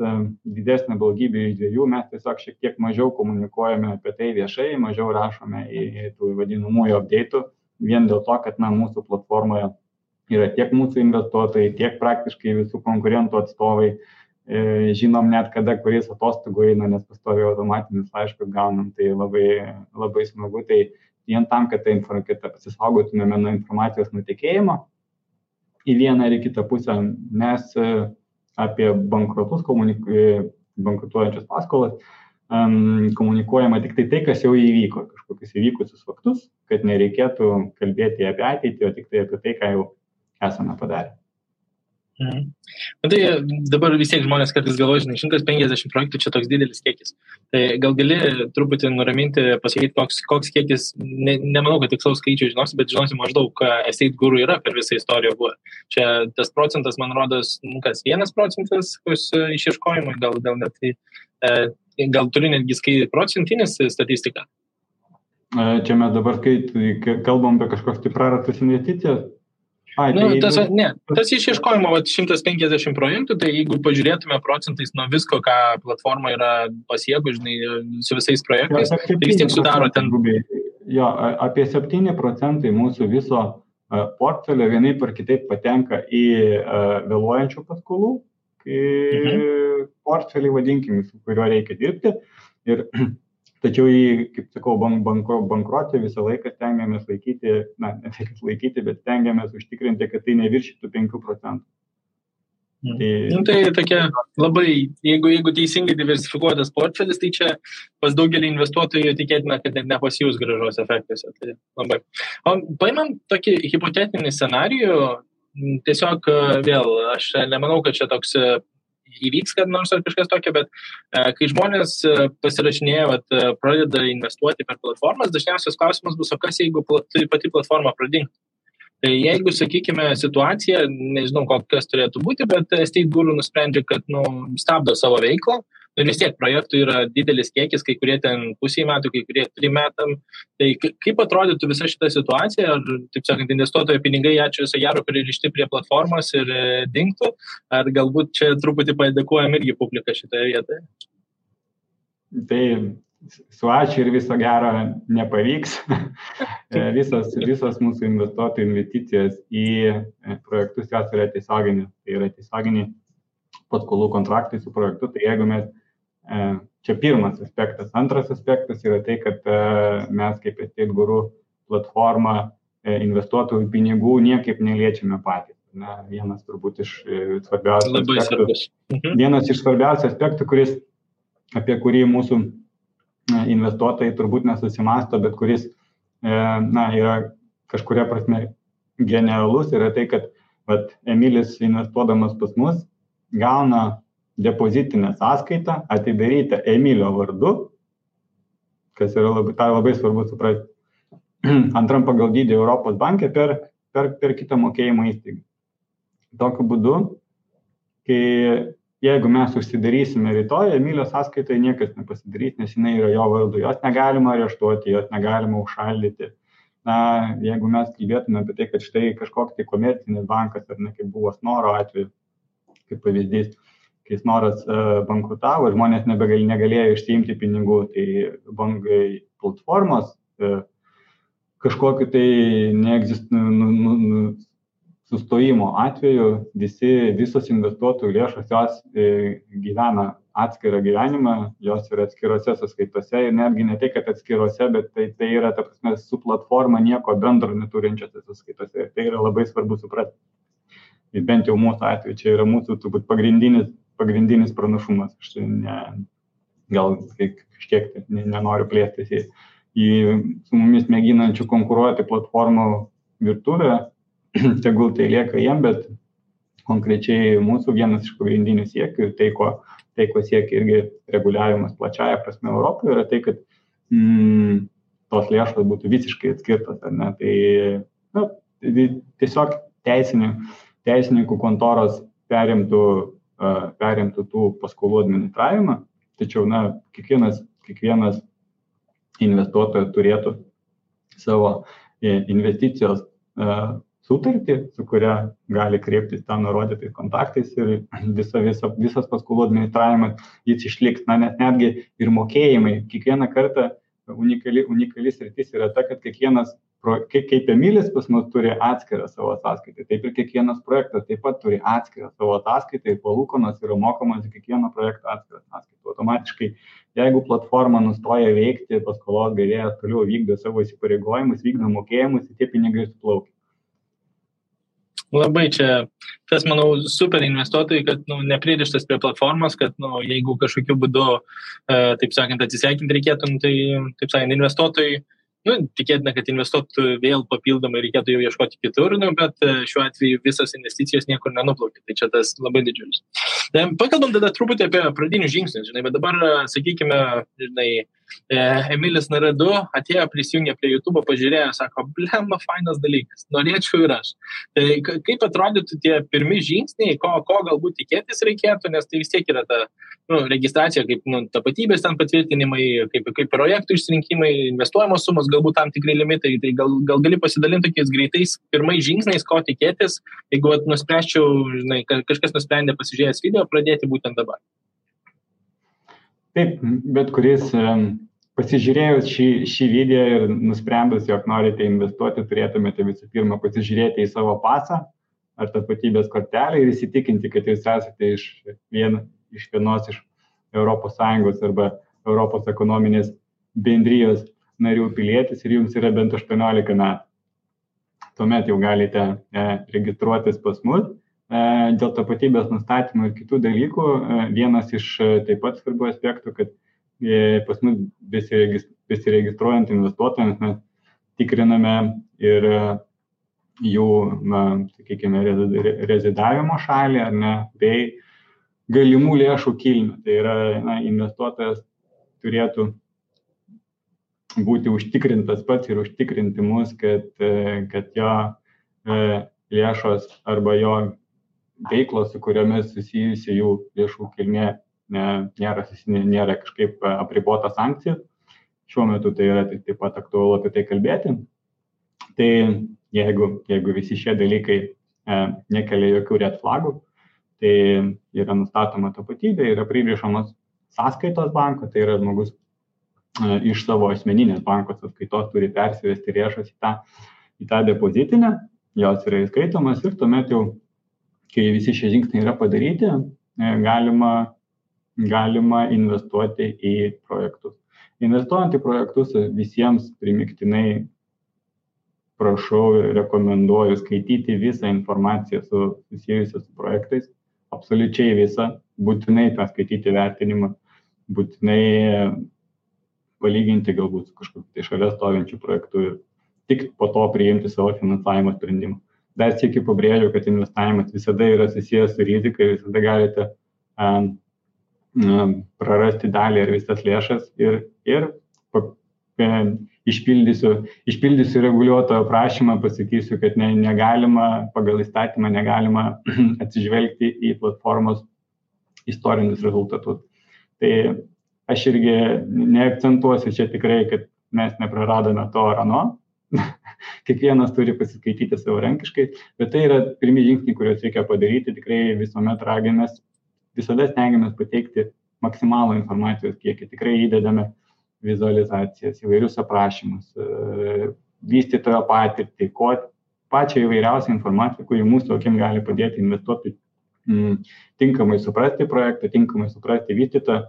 didesnę blogybę iš dviejų, mes tiesiog šiek tiek mažiau komunikuojame apie tai viešai, mažiau rašome į tų vadinamųjų update'ų, vien dėl to, kad mūsų platformoje yra tiek mūsų investuotojai, tiek praktiškai visų konkurentų atstovai, žinom net kada kuris atostogų eina, nes pastoviai automatinius laiškus gaunam, tai labai, labai smagu, tai vien tam, kad pasisaugotumėme nuo informacijos nutekėjimo į vieną ar į kitą pusę, mes apie bankrotus, bankrutuojančias paskolas, komunikuojama tik tai, kas jau įvyko, kažkokius įvykusius faktus, kad nereikėtų kalbėti apie ateitį, o tik tai apie tai, ką jau esame padarę. Tai dabar vis tiek žmonės kartais galvoja, 150 projektų čia toks didelis kiekis. Tai gal gali truputį nuraminti, pasakyti, koks kiekis, nemanau, kad tikslaus skaičių žinosi, bet žinosi maždaug, Estate Guru yra per visą istoriją buvo. Čia tas procentas, man rodos, 1% išieškojimui, gal net tai. Gal turi netgi procentinis statistiką? Čia mes dabar kalbam apie kažkokius prarastas investicijas. Tas išieškojimo 150 projektų, tai jeigu pažiūrėtume procentais nuo visko, ką platforma yra pasiekų, su visais projektais, tai vis tiek sudaro ten. Jo, apie 7% mūsų viso portfelio vienaip ar kitaip patenka į vėluojančių paskolų portfelį, vadinkim, su kuriuo reikia dirbti. Tačiau kaip sakau, bankruotė visą laiką stengiamės laikyti, ne tik laikyti, bet stengiamės užtikrinti, kad tai neviršytų 5%. Tai tokia labai, jeigu teisingai diversifikuotas portfelis, tai čia pas daugelį investuotojų tikėtina, kad net nepasijus grąžos efektuose. Tai labai. Paimam tokį hipotetinį scenarijų, tiesiog vėl, aš nemanau, kad čia toks įvyks, kad nors ar kažkas tokio, bet kai žmonės pasirašinėja, pradeda investuoti per platformas, dažniausias klausimas bus, o kas jeigu pati platforma pradingtų? Tai jeigu, sakykime, situacija, nežinau, kokias turėtų būti, bet Estate Guru nusprendžia, kad stabdo savo veiklą, ir vis tiek projektų yra didelis kiekis, kai kurie ten pusė metų, kai kurie 3 metam. Tai kaip atrodytų visa šita situacija, ar, taip sakant, investuotojo pinigai, ačiū viso gero, pririšti prie platformos ir dingtų, ar galbūt čia truputį padėkojam irgi publiką šitoje vietoje? Tai su ačiū ir viso gero nepavyks. Visos mūsų investuotojų investicijos į projektus jos yra tiesioginės. Tai yra tiesioginiai paskolų kontraktai su projektu. Tai jeigu mes, čia pirmas aspektas. Antras aspektas yra tai, kad mes kaip Estate Guru platforma investuotojų pinigų niekaip neliečiame patys. Vienas turbūt iš svarbiausių aspektų. Vienas iš svarbiausių aspektų, apie kurį mūsų investuotojai turbūt nesusimasto, bet kuris yra kažkuria prasme genialus, yra tai, kad Emilis investuodamas pas mus gauna depozitinę sąskaitą atidarytą Emilio vardu, kas yra labai svarbu suprasti, antram pagal dydį Europos banke per kitą mokėjimo įstaigą. Tokiu būdu, jeigu mes užsidarysime rytoj, Emilio sąskaitai niekas nepasidarys, nes jinai yra jo vardu. Jos negalima areštuoti, jos negalima užšaldyti. Jeigu mes kalbėtume apie tai, kad štai kažkoks tai komercinis bankas, ar ne, kaip buvo Snoro atveju, kaip pavyzdys, kai Snoras bankrutavo, žmonės negalėjo išsiimti pinigų, tai bankai platformos kažkokiu tai sustojimo atveju visos investuotojų lėšos jos gyvena atskirą gyvenimą, jos yra atskirose sąskaitose ir netgi ne tai, kad atskirose, bet tai yra, ta prasme, su platforma nieko bendro neturinčiose sąskaitose ir tai yra labai svarbu suprasti. Ir bent jau mūsų atveju čia yra mūsų turbūt pagrindinis pranašumas. Aš gal kažkiek nenoriu plėstis į su mumis mėginančių konkuruoti platformų virtuvę, tegul tai lieka jiem, bet konkrečiai mūsų vienas iš pagrindinių siekių ir tai, ko siekia irgi reguliavimas plačiaja prasme Europoje, yra tai, kad tos lėšos būtų visiškai atskirtos. Ar ne? Tai tiesiog teisininkų kontoros perimtų tų paskolų administravimą, tačiau kiekvienas investuotojas turėtų savo investicijos sutartį, su kuria gali kreiptis ten nurodytais kontaktais ir visas paskolų administravimas jis išliks. Nes netgi ir mokėjimai, kiekvieną kartą unikali sritis yra ta, kad kiekvienas, kaip Emilis pas mus turi atskirą savo ataskaitą, taip ir kiekvienas projektas taip pat turi atskirą savo ataskaitą ir palūkanos yra mokamos į kiekvieno projekto atskirą ataskaitą. Automatiškai, jeigu platforma nustoja veikti, paskolos gavėjas toliau vykdo savo įsipareigojimus, vykdo mokėjimus, tie pinigai suplaukia. Labai čia, tas, manau, super investuotojai, kad nepririštas prie platformos, kad jeigu kažkokiu būdu, taip sakant, atsisveikinti reikėtų, tai, taip sakant, investuotojai, tikėtina, kad investuotų vėl papildomai reikėtų jau ieškoti kitur, bet šiuo atveju visas investicijos niekur nenuplaukia, tai čia tas labai didžiulis. Pakalbam tada truputį apie pradinius žingsnius, bet dabar, sakykime, Emilis NR2 atėjo, prisijungė prie YouTube, pažiūrėjo, sako, blemba, fainas dalykas, norėčiau ir aš. Tai kaip atrodytų tie pirmi žingsniai, ko galbūt tikėtis reikėtų, nes tai vis tiek yra ta registracija, kaip tapatybės ten patvirtinimai, kaip projektų išsirinkimai, investuojamos sumos, galbūt tam tikrai limitai, tai gal gali pasidalinti tokiais greitais pirmais žingsniais, ko tikėtis, jeigu nuspręsčiau, kažkas nusprendė pasižiūrėjęs video, pradėti būtent dabar. Taip, bet kuris pasižiūrėjus šį video ir nusprendus, jog norite investuoti, turėtumėte visų pirma pasižiūrėti į savo pasą ar tapatybės kortelę ir įsitikinti, kad jūs esate iš vienos iš ES arba Europos ekonominės bendrijos narių pilietis ir jums yra bent 18 metų. Tuomet jau galite registruotis pas mus. Dėl tapatybės nustatymų ir kitų dalykų, vienas iš taip pat svarbių aspektų, kad pas mus besiregistruojant investuotojams mes tikriname ir jų, sakykime, rezidavimo šalį, ar ne, bei galimų lėšų kilmę. Tai yra, investuotojas turėtų būti užtikrintas pats ir užtikrinti mus, kad jo lėšos arba jo veiklos, su kuriomis susijusi jų lėšų kilmė nėra kažkaip apribota sankcija. Šiuo metu tai yra taip pat aktualu apie tai kalbėti. Tai jeigu visi šie dalykai nekelia jokių red flagų, tai yra nustatoma tapatybė, yra pririšamos sąskaitos banko, tai yra žmogus iš savo asmeninės banko sąskaitos turi persivesti lėšas į tą depozitinę, jos yra įskaitomas ir tuomet jau, kai visi šie žingsniai yra padaryti, galima investuoti į projektus. Investuojant į projektus visiems primygtinai prašau ir rekomenduoju skaityti visą informaciją susijusią su projektais, absoliučiai visą, būtinai tą skaityti vertinimą, būtinai palyginti galbūt su kažkokiu tai šalia stovinčiu projektu ir tik po to priimti savo finansavimo sprendimą. Dar sykį pabrėžiu, kad investavimas visada yra susijęs su rizika ir visada galite prarasti dalį ar visas lėšas ir išpildysiu reguliuotojo prašymą, pasakysiu, kad negalima, pagal įstatymą negalima atsižvelgti į platformos istorinius rezultatus. Tai aš irgi neakcentuosiu čia tikrai, kad mes nepraradome to ar ano. Kiekvienas turi pasiskaityti savarankiškai, bet tai yra pirmi žingsniai, kuriuos reikia padaryti. Tikrai visuomet raginamės, visada stengiamės pateikti maksimalų informacijos kiekį. Tikrai įdedame vizualizacijas, įvairius aprašymus, vystytojo patirtį, pačią įvairiausią informaciją, kuri mūsų akim gali padėti investuoti tinkamai suprasti projektą, tinkamai suprasti vystytą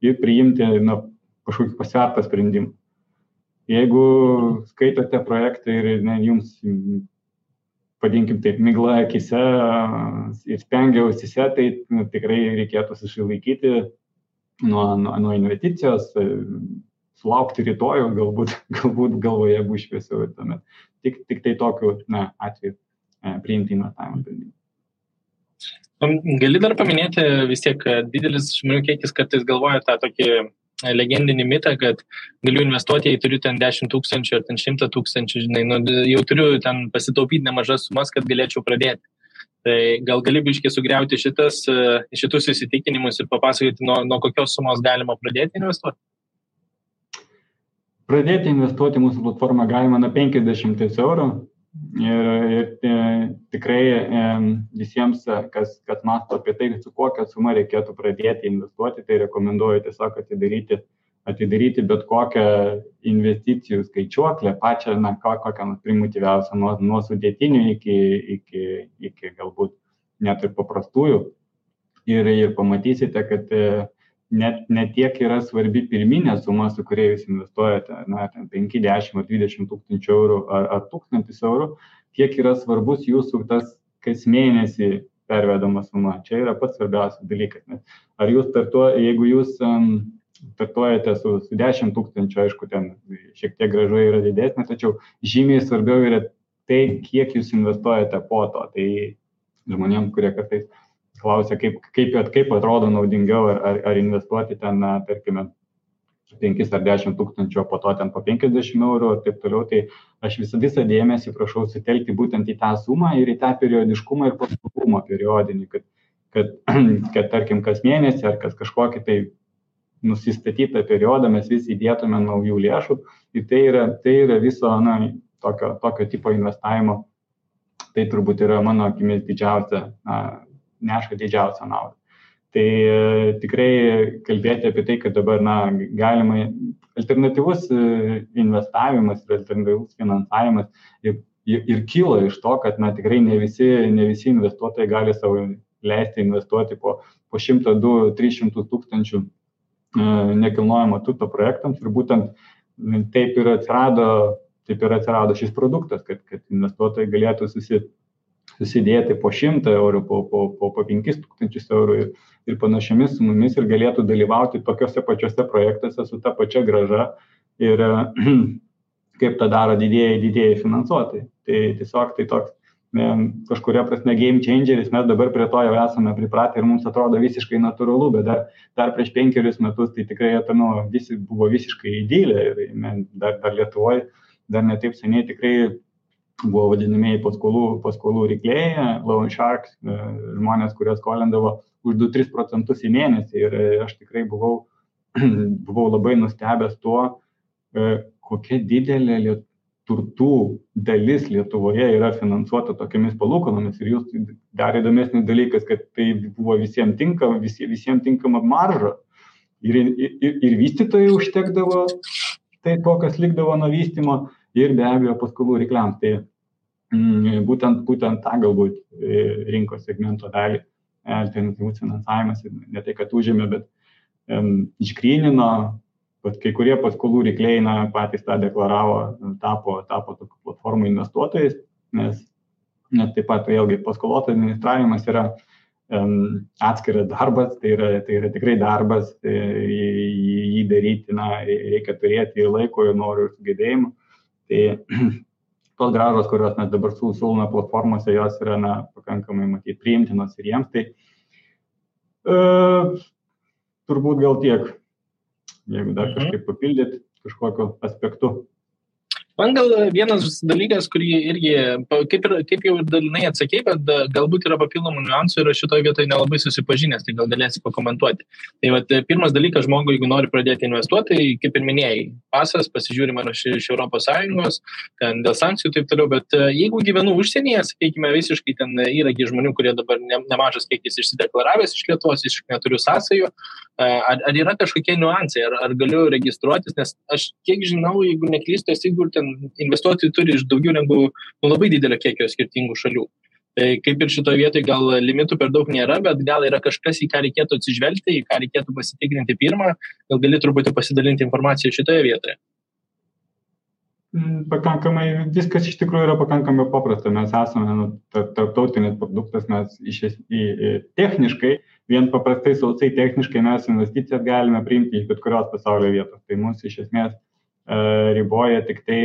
ir priimti kažkokį pasvertą sprendimą. Jeigu skaitote projektą ir jums, vadinkim taip, migla akise ir spengia ausyse, tai tikrai reikėtų susilaikyti nuo investicijos, sulaukti rytojų, galbūt galvoje bus šviesiau ir tuomet. Tik tai tokiu atveju priimti investavimo sprendimą. Gali dar paminėti vis tiek, didelis žmonių kiekis kartais galvoja tą tokį legendinį mitą, kad galiu investuoti, jei turiu ten 10 000 ar ten 100 000, žinai, jau turiu ten pasitaupyti nemažas sumas, kad galėčiau pradėti. Tai gal gali biškiai sugriauti šitus įsitikinimus ir papasakoti, nuo kokios sumos galima pradėti investuoti? Pradėti investuoti mūsų platformą galima nuo 50 eurų ir tikrai visiems, kas mąsto apie tai, su kokia suma reikėtų pradėti investuoti, tai rekomenduoju tiesiog atidaryti bet kokią investicijų skaičiuoklę, pačią, kokią primityviausią, nuo sudėtinių iki galbūt net ir paprastųjų. Ir pamatysite, kad net tiek yra svarbi pirminė suma, su kuria jūs investuojate, 5, 10 ar 20 tūkstančių eurų ar 1000 eurų, tiek yra svarbus jūsų tas kas mėnesį pervedama suma. Čia yra pats svarbiausias dalykas. Ar jūs jeigu jūs startuojate su 10 000, aišku, ten šiek tiek grąža yra didesnė, tačiau žymiai svarbiau yra tai, kiek jūs investuojate po to. Tai žmonėms, kurie kartais klausia, kaip atrodo naudingiau, ar investuoti ten, tarkime, 5 ar 10 tūkstančių, po to ten po 50 eurų ir taip toliau, tai aš visą dėmesį prašau sutelkti būtent į tą sumą ir į tą periodiškumą ir pastovumą periodinį, kad tarkim, kas mėnesį ar kas kažkokį tai nusistatytą periodą mes vis įdėtume naujų lėšų ir tai yra viso tokio tipo investavimo. Tai turbūt yra mano akimis neša didžiausią naudą. Tai tikrai kalbėti apie tai, kad dabar galima alternatyvus investavimas ir alternatyvus finansavimas ir kyla iš to, kad tikrai ne visi investuotojai gali savo leisti investuoti po 100, 200, 300 tūkstančių nekilnojamo turto projektams ir būtent taip ir atsirado šis produktas, kad investuotojai galėtų susidėti po 100 eurų, po 5000 eurų ir panašiomis sumomis ir galėtų dalyvauti tokiuose pačiuose projektuose su ta pačia grąža ir kaip tą daro didieji finansuotojai. Tai tiesiog tai toks kažkuria prasme game changeris, mes dabar prie to jau esame pripratę ir mums atrodo visiškai natūralu, bet dar prieš 5 metus tai tikrai visi buvo visiškai idylė ir dar Lietuvoje, dar netaip seniai tikrai buvo vadinamieji paskolų riklėjai, loan sharks, žmonės, kurie skolindavo už 2-3% į mėnesį ir aš tikrai buvau labai nustebęs tuo, kokia didelė turtų dalis Lietuvoje yra finansuota tokiamis palūkanomis ir jūs dar įdomesnis dalykas, kad tai buvo visiems tinkama marža ir vystytojai užtekdavo tai to, kas likdavo nuo vystymo ir be abejo paskolų rykliams. Tai būtent tą galbūt rinkos segmento dalį alternatyvus finansavimas ne tai, kad užėmė, bet išgrynino. Kai kurie paskolų rykliai patys tą deklaravo, tapo tokių platformų investuotojais, nes taip pat vėlgi paskolos administravimas yra atskiras darbas, tai yra tikrai darbas, jį daryti, reikia turėti ir laiko, ir norų, ir sugebėjimų. Tai tos grąžos, kurios mes dabar siūlome platformose, jos yra pakankamai matyti priimtinos ir jiems, tai turbūt gal tiek. Jeigu dar kažkaip papildyti kažkokiu aspektu. Man gal vienas dalykas, kurį irgi, kaip jau ir dalinai atsakei, bet galbūt yra papildomų niuansų ir šitoje vietoje nelabai susipažinęs, tai gal galėsi pakomentuoti. Tai pirmas dalykas, žmogui, jeigu nori pradėti investuoti, tai kaip ir minėjai, pasas, pasižiūrima iš Europos Sąjungos, ten dėl sankcijų taip toliau, bet jeigu gyvenu užsienyje, sakykime, visiškai ten yra žmonių, kurie dabar nemažas kiekis išsideklaravęs iš Lietuvos, visiškai neturiu sąsajų, ar yra kažkokie niuansai, ar galiu registruotis, nes aš kiek žinau, jeigu neklystu, investuotojai turi iš daugiau negu labai didelio kiekio skirtingų šalių. Tai kaip ir šitoje vietoje gal limitų per daug nėra, bet gal yra kažkas, į ką reikėtų atsižvelgti, į ką reikėtų pasitikrinti pirmą, gal gali truputį pasidalinti informaciją šitoje vietoje. Pakankamai, viskas iš tikrųjų yra pakankamai paprasta. Mes esame tarptautinis produktas, mes techniškai, vien paprastai sausai techniškai mes investicijas galime priimti iš bet kurios pasaulio vietos. Tai mūsų iš esmės riboja tik tai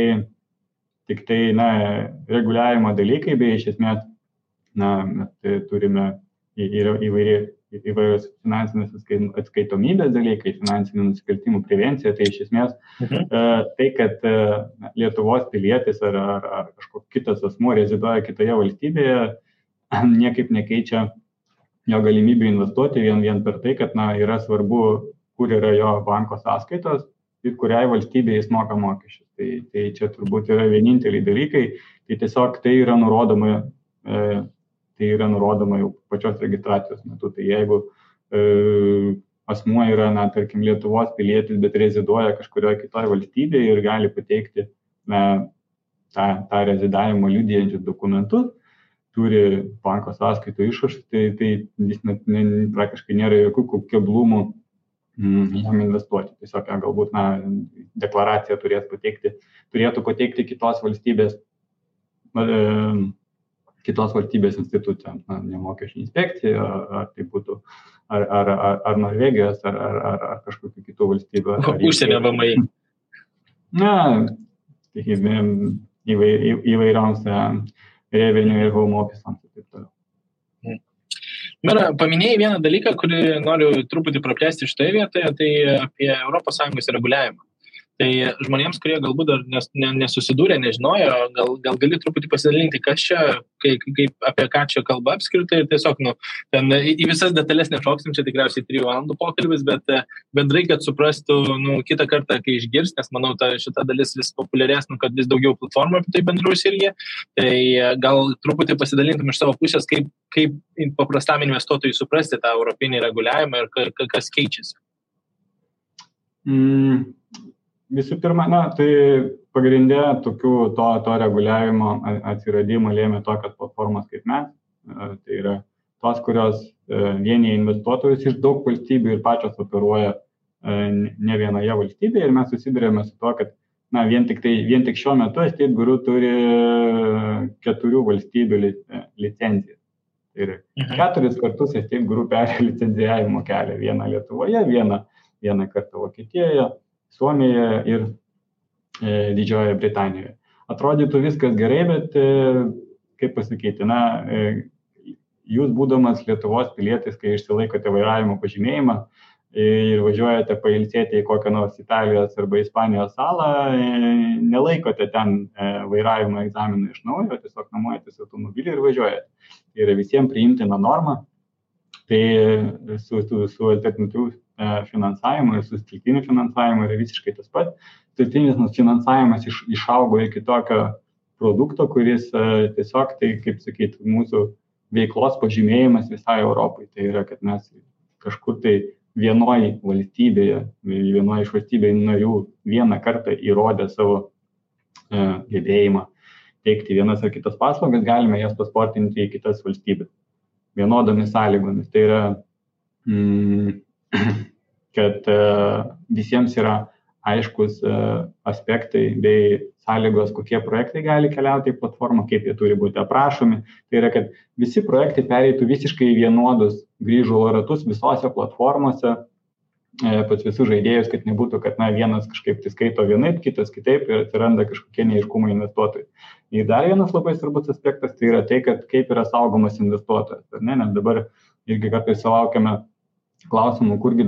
reguliavimo dalykai, bei iš esmės mes turime įvairios finansinės atskaitomybės dalykai, finansinių nusikaltimų prevencija, tai iš esmės tai, kad Lietuvos pilietis ar kažkoks kitas asmuo reziduoja kitoje valstybėje, niekaip nekeičia jo galimybių investuoti vien per tai, kad yra svarbu, kur yra jo banko sąskaitos ir kuriai valstybėje jis moka mokesčius. Tai čia turbūt yra vieninteliai dalykai, tai tiesiog tai yra nurodoma jau pačios registracijos metu. Tai jeigu asmuo yra, tarkim, Lietuvos pilietis, bet reziduoja kažkurioje kitoje valstybėje ir gali pateikti tą rezidavimo liudijančius dokumentus, turi banko sąskaitų išrašus, tai jis praktiškai nėra jokių keblumų jam investuoti. Tiesiog galbūt deklaraciją turėtų pateikti kitos valstybės institucijams, ne mokesčių inspekcija, ar tai būtų ar Norvegijos, ar kažkokių kitų valstybių. Užsienio VMI. Įvairioms revenue ir home office'ams ir taip toliau. Mera, paminėjai vieną dalyką, kurį noriu truputį praplėsti šitoje vietoje, tai apie ES reguliavimą. Tai žmonėms, kurie galbūt dar nesusidūrė, nežinojo, gal gali truputį pasidalinti, kas čia, apie ką čia kalba apskritai ir tiesiog, ten į visas detalės nešoksim, čia tikriausiai 3 valandų pokalbis, bet bendrai, kad suprastų, kitą kartą, kai išgirs, nes manau, šita dalis vis populiarės, kad vis daugiau platformų apie tai bendraus irgi, tai gal truputį pasidalintum iš savo pusės, kaip paprastam investuotojui suprasti tą europinį reguliavimą ir kas keičiasi. Visų pirma, tai pagrindė to reguliavimo atsiradimą lėmė tokios platformos kaip mes. Tai yra tos, kurios vienyje investuotojus iš daug valstybių ir pačios operuoja ne vienoje valstybėje. Ir mes susidurėme su to, kad vien tik šiuo metu Estate Guru turi 4 valstybių licencijas. Tai yra 4 kartus Estate Guru perėjo licencijavimo kelią. Vieną Lietuvoje, vieną kartą Vokietijoje, Suomijoje ir Didžiojoje Britanijoje. Atrodytų viskas gerai, bet, kaip pasakyti, jūs būdamas Lietuvos pilietis, kai išsilaikote vairavimo pažymėjimą ir važiuojate pailsėti į kokią nors Italijos arba Ispanijos salą, nelaikote ten vairavimo egzaminą iš naujo, tiesiog nuomojatės automobilį ir važiuojate. Tai yra visiems priimtina norma. Tai su alternatyviu finansavimu ir su stiltiniu finansavimu yra visiškai tas pats. Stiltinis finansavimas išaugo iki tokio produkto, kuris tiesiog, tai kaip sakyti, mūsų veiklos pažymėjimas visai Europai. Tai yra, kad mes kažkur tai vienoje iš valstybėje narių vieną kartą įrodę savo gebėjimą teikti vienas ar kitas paslaugas, galime jas pasportinti į kitas valstybės vienodomis sąlygomis. Tai yra, kad visiems yra aiškus aspektai bei sąlygos, kokie projektai gali keliauti į platformą, kaip jie turi būti aprašomi. Tai yra, kad visi projektai pereitų visiškai vienodus grįžulo ratus visose platformose, pas visus žaidėjus, kad nebūtų, kad vienas kažkaip tai skaito vienaip, kitas kitaip ir atsiranda kažkokie neaiškumai investuotojai. Ir dar vienas labai svarbus aspektas, tai yra tai, kad kaip yra saugomas investuotojas. Nes dabar irgi kartais sulaukiame klausimų, kurgi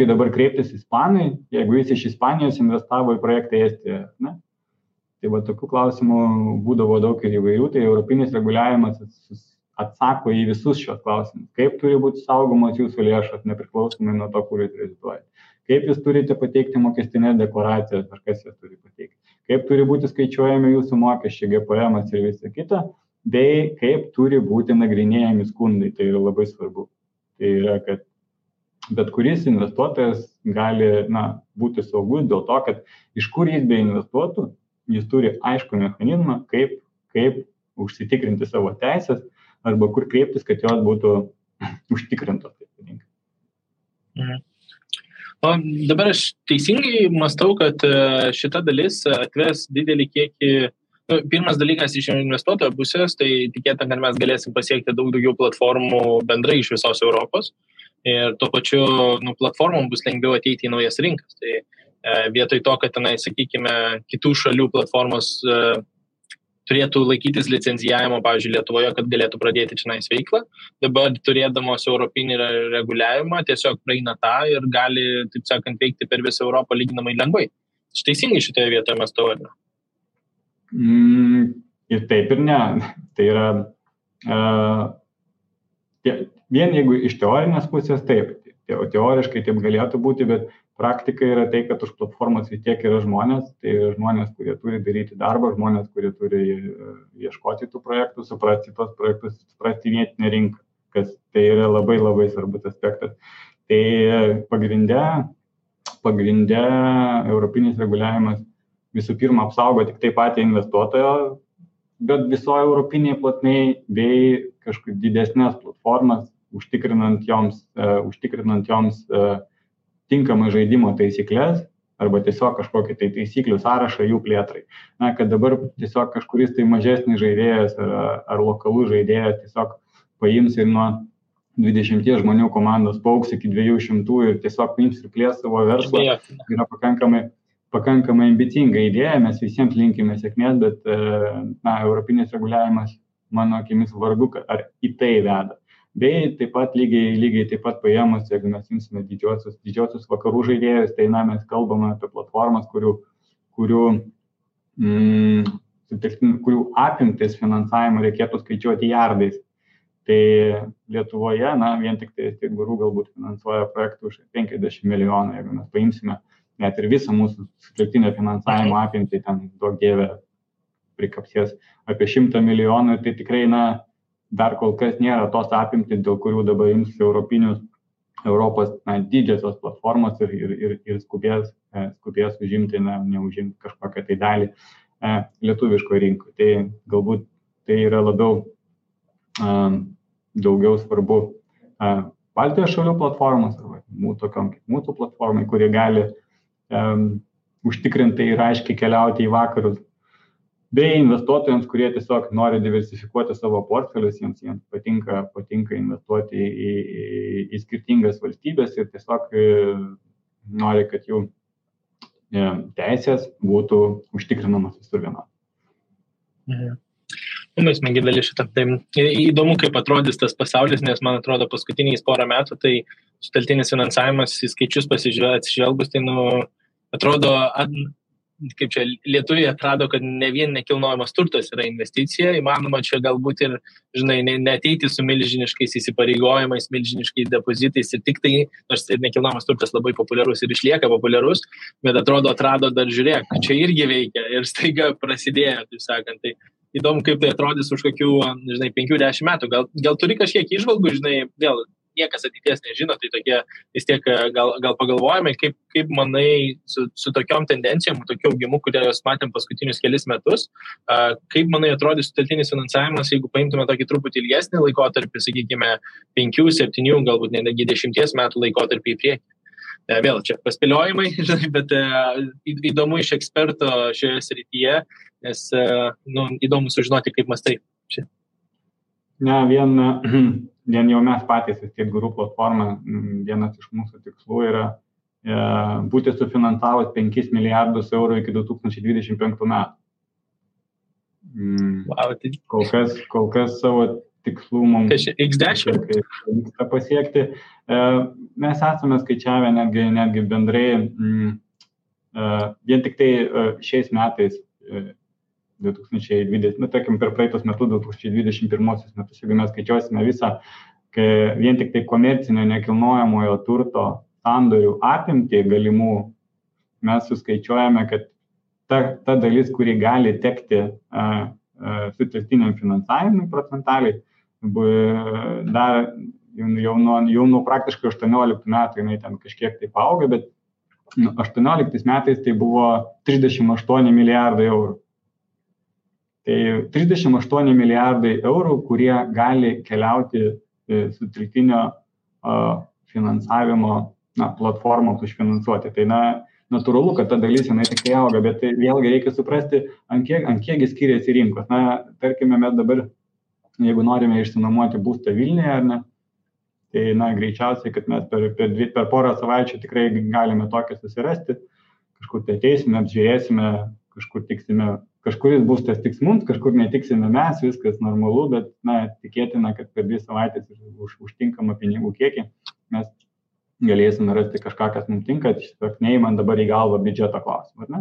dabar kreiptis ispanai, jeigu jis iš Ispanijos investavo į projektą Estijoje. Tai tokių klausimų būdavo daug ir įvairių, tai europinis reguliavimas atsako į visus šios klausimus. Kaip turi būti saugomos jūsų lėšos, nepriklausomai nuo to, kur jūs reziduojate. Kaip jūs turite pateikti mokestinės deklaracijas, ar kas jas turi pateikti. Kaip turi būti skaičiuojami jūsų mokesčiai, GPM ir visa kita, bei kaip turi būti nagrinėjami skundai. Tai yra labai svarbu. Tai yra, kad bet kuris investuotojas gali būti saugus dėl to, kad iš kur jis beinvestuotų, jis turi aišku mechanizmą, kaip užsitikrinti savo teisės arba kur kreiptis, kad jos būtų užtikrintos. O dabar aš teisingai mąstau, kad šita dalis atves didelį kiekį. Pirmas dalykas iš investuotojo pusės, tai tikėtina, kad mes galėsim pasiekti daug daugiau platformų bendrai iš visos Europos ir tuo pačiu platformom bus lengviau ateiti į naujas rinkas. Tai vietoj to, kad tenai, sakykime, kitų šalių platformos turėtų laikytis licenzijavimo, pavyzdžiui, Lietuvoje, kad galėtų pradėti čionais veiklą, dabar turėdamos europinį reguliavimą tiesiog praeina tą ir gali, taip sakant, veikti per visą Europą lyginamai lengvai. Teisingai šitoje vietoje mes to vadiname. Ir taip ir ne. Tai yra vien jeigu iš teorinės pusės taip, teoriškai taip galėtų būti, bet praktika yra tai, kad už platformos vis tiek yra žmonės, tai žmonės, kurie turi daryti darbą, žmonės, kurie turi ieškoti tų projektų, suprasti tos projektus, suprasti vietinę rinką, kas tai yra labai labai svarbus aspektas. Tai pagrinde europinis reguliavimas visų pirma apsaugo tik tai patį investuotojo, bet visoje europinėje plotmėje bei kažkaip didesnės platformas, užtikrinant joms tinkamai žaidimo taisyklės arba tiesiog kažkokį tai taisyklių sąrašą jų plėtrai. Na, kad dabar tiesiog kažkuris tai mažesnis žaidėjas ar lokalus žaidėjas tiesiog paims ir nuo 20 žmonių komandos pauks iki 200 ir tiesiog paims ir plės savo verslą. Yra pakankamai ambicinga idėja, mes visiems linkime sėkmės, bet europinis reguliavimas, mano akimis, vargu, ar į tai veda. Bei taip pat lygiai taip pat paėmus, jeigu mes imsime didžiosius vakarų žaidėjus, tai mes kalbame apie platformas, kurių apimtis finansavimo reikėtų skaičiuoti jardais. Tai Lietuvoje, vien tik tai guru galbūt finansuoja projektų už 50 milijonų, jeigu mes paimsime net ir visą mūsų sutelktinio finansavimo apimtį, ten daug dievė prikapsės apie 100 milijonų, tai tikrai, dar kol kas nėra tos apimtys, dėl kurių dabar ims Europos didžiosios platformos ir skubės užimti, neužimti kažkokią tai dalį lietuviško rinkoje. Tai galbūt tai yra daugiau svarbu Baltijos šalių platformos, arba tokiom kaip mūsų platformai, kurie gali užtikrintai ir aiškiai keliauti į vakarus, bei investuotojams, kurie tiesiog nori diversifikuoti savo portfelius, jiems patinka investuoti į skirtingas valstybės ir tiesiog nori, kad jų teisės būtų užtikrinamas visur vienodai. Mes smagi dalis šitą. Tai įdomu, kaip atrodys tas pasaulis, nes man atrodo paskutiniais porą metų, tai sutelktinis finansavimas į skaičius atsižvelgus, tai atrodo, kaip čia lietuviai atrado, kad ne vien nekilnojamas turtas yra investicija, įmanoma čia galbūt ir, neateiti su milžiniškais įsipareigojimais, milžiniškais depozitais ir tik tai, nors ir nekilnojamas turtas labai populiarus ir išlieka populiarus, bet atrado dar žiūrėk, čia irgi veikia ir staiga prasidėjo, taip sakant. Tai įdomu, kaip tai atrodys už kokių, 5-10 metų. Gal turi kažkiek įžvalgų, vėl niekas ateities nežino, tai tokie vis tiek gal pagalvojame, kaip manai su tokiom tendencijom, tokiu augimu, kurios matėm paskutinius kelis metus, kaip manai atrodys sutelktinis finansavimas, jeigu paimtume tokį truputį ilgesnį laikotarpį, sakykime, 5-7, galbūt netgi 10 metų laikotarpį į priekį. Vėl čia paspėliojimai, bet įdomu iš eksperto šioje srityje, nes įdomu sužinoti, kaip mąstai. Vien jau mes patys, vis tiek guru platforma, vienas iš mūsų tikslų yra būti sufinansavus 5 milijardus eurų iki 2025 metų. Kol kas savo tikslų mums pavyksta pasiekti. Mes esame skaičiavę netgi bendrai, vien tik tai šiais metais 2020, tarkim per praeitus metus, 2021 metus, jeigu mes skaičiuosime visą, vien tik tai komercinio nekilnojamojo turto sandorių apimtį galimų, mes suskaičiuojame, kad ta dalis, kuri gali tekti sutelktiniam finansavimui procentaliai, dar jau nuo praktiškai 18 metų jinai ten kažkiek taip auga, bet 18 metais tai buvo 38 milijardai eurų. Tai 38 milijardai eurų, kurie gali keliauti su triltinio finansavimo platformoms užfinansuoti. Tai natūralu, kad ta dalis jinai tik auga, bet tai vėlgi reikia suprasti, ant kiekgi skiriasi rinkos. Tarkime, mes dabar, jeigu norime išsinuomoti būstą Vilniuje, ar ne, tai greičiausiai, kad mes per porą savaičių tikrai galime tokią susirasti, kažkur tai ateisime, apžiūrėsime, kažkur tiksime, kažkuris būstas tiks mums, kažkur netiksime mes, viskas normalu, bet tikėtina, kad per 2 savaitės užtinkamą pinigų kiekį mes galėsime rasti kažką, kas mums tinka, tiesiog neįman dabar į galvą biudžeto klausimą, ar ne?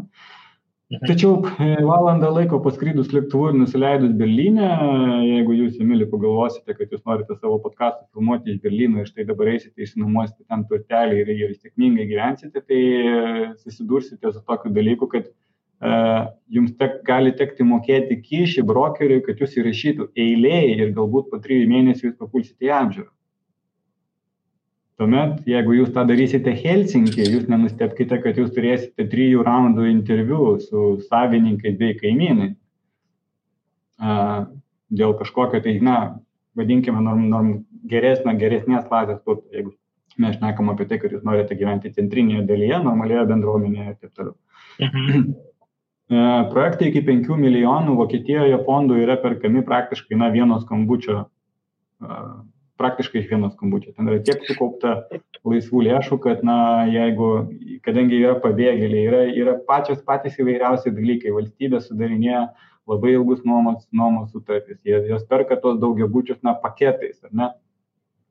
Tačiau valandą laiko paskrydus lėktuvu ir nusileidus Berlyne, jeigu jūs, Emili, pagalvosite, kad jūs norite savo podcastą filmuoti iš Berlyno ir štai dabar eisite, išsinuomosite ten turtelį ir sėkmingai gyvensite, tai susidursite su tokiu dalyku, kad jums gali tekti mokėti kyšį brokeriui, kad jūs įrašytų eilėje ir galbūt po 3 mėnesių jūs papulsite į apžiūrą. Tuomet, jeigu jūs tą darysite Helsinkį, jūs nenustebkite, kad jūs turėsite 3 raundų interviu su savininkais bei kaimynai. Dėl kažkokio, tai, vadinkime, geresnės klasės turto, jeigu mes šnekam apie tai, kad jūs norite gyventi centrinėje dalyje, normalioje bendruomenėje ir taip toliau. Projektai iki 5 milijonų Vokietijoje fondų yra perkami praktiškai vieno skambučio. Praktiškai iš vieno skambučio. Ten yra tiek sukaupta laisvų lėšų, kad, kadangi yra pabėgėliai, yra patys įvairiausi dalykai. Valstybė sudarinėja labai ilgus nuomos sutartys. Jos perka tos daugiabučius paketais, ar ne?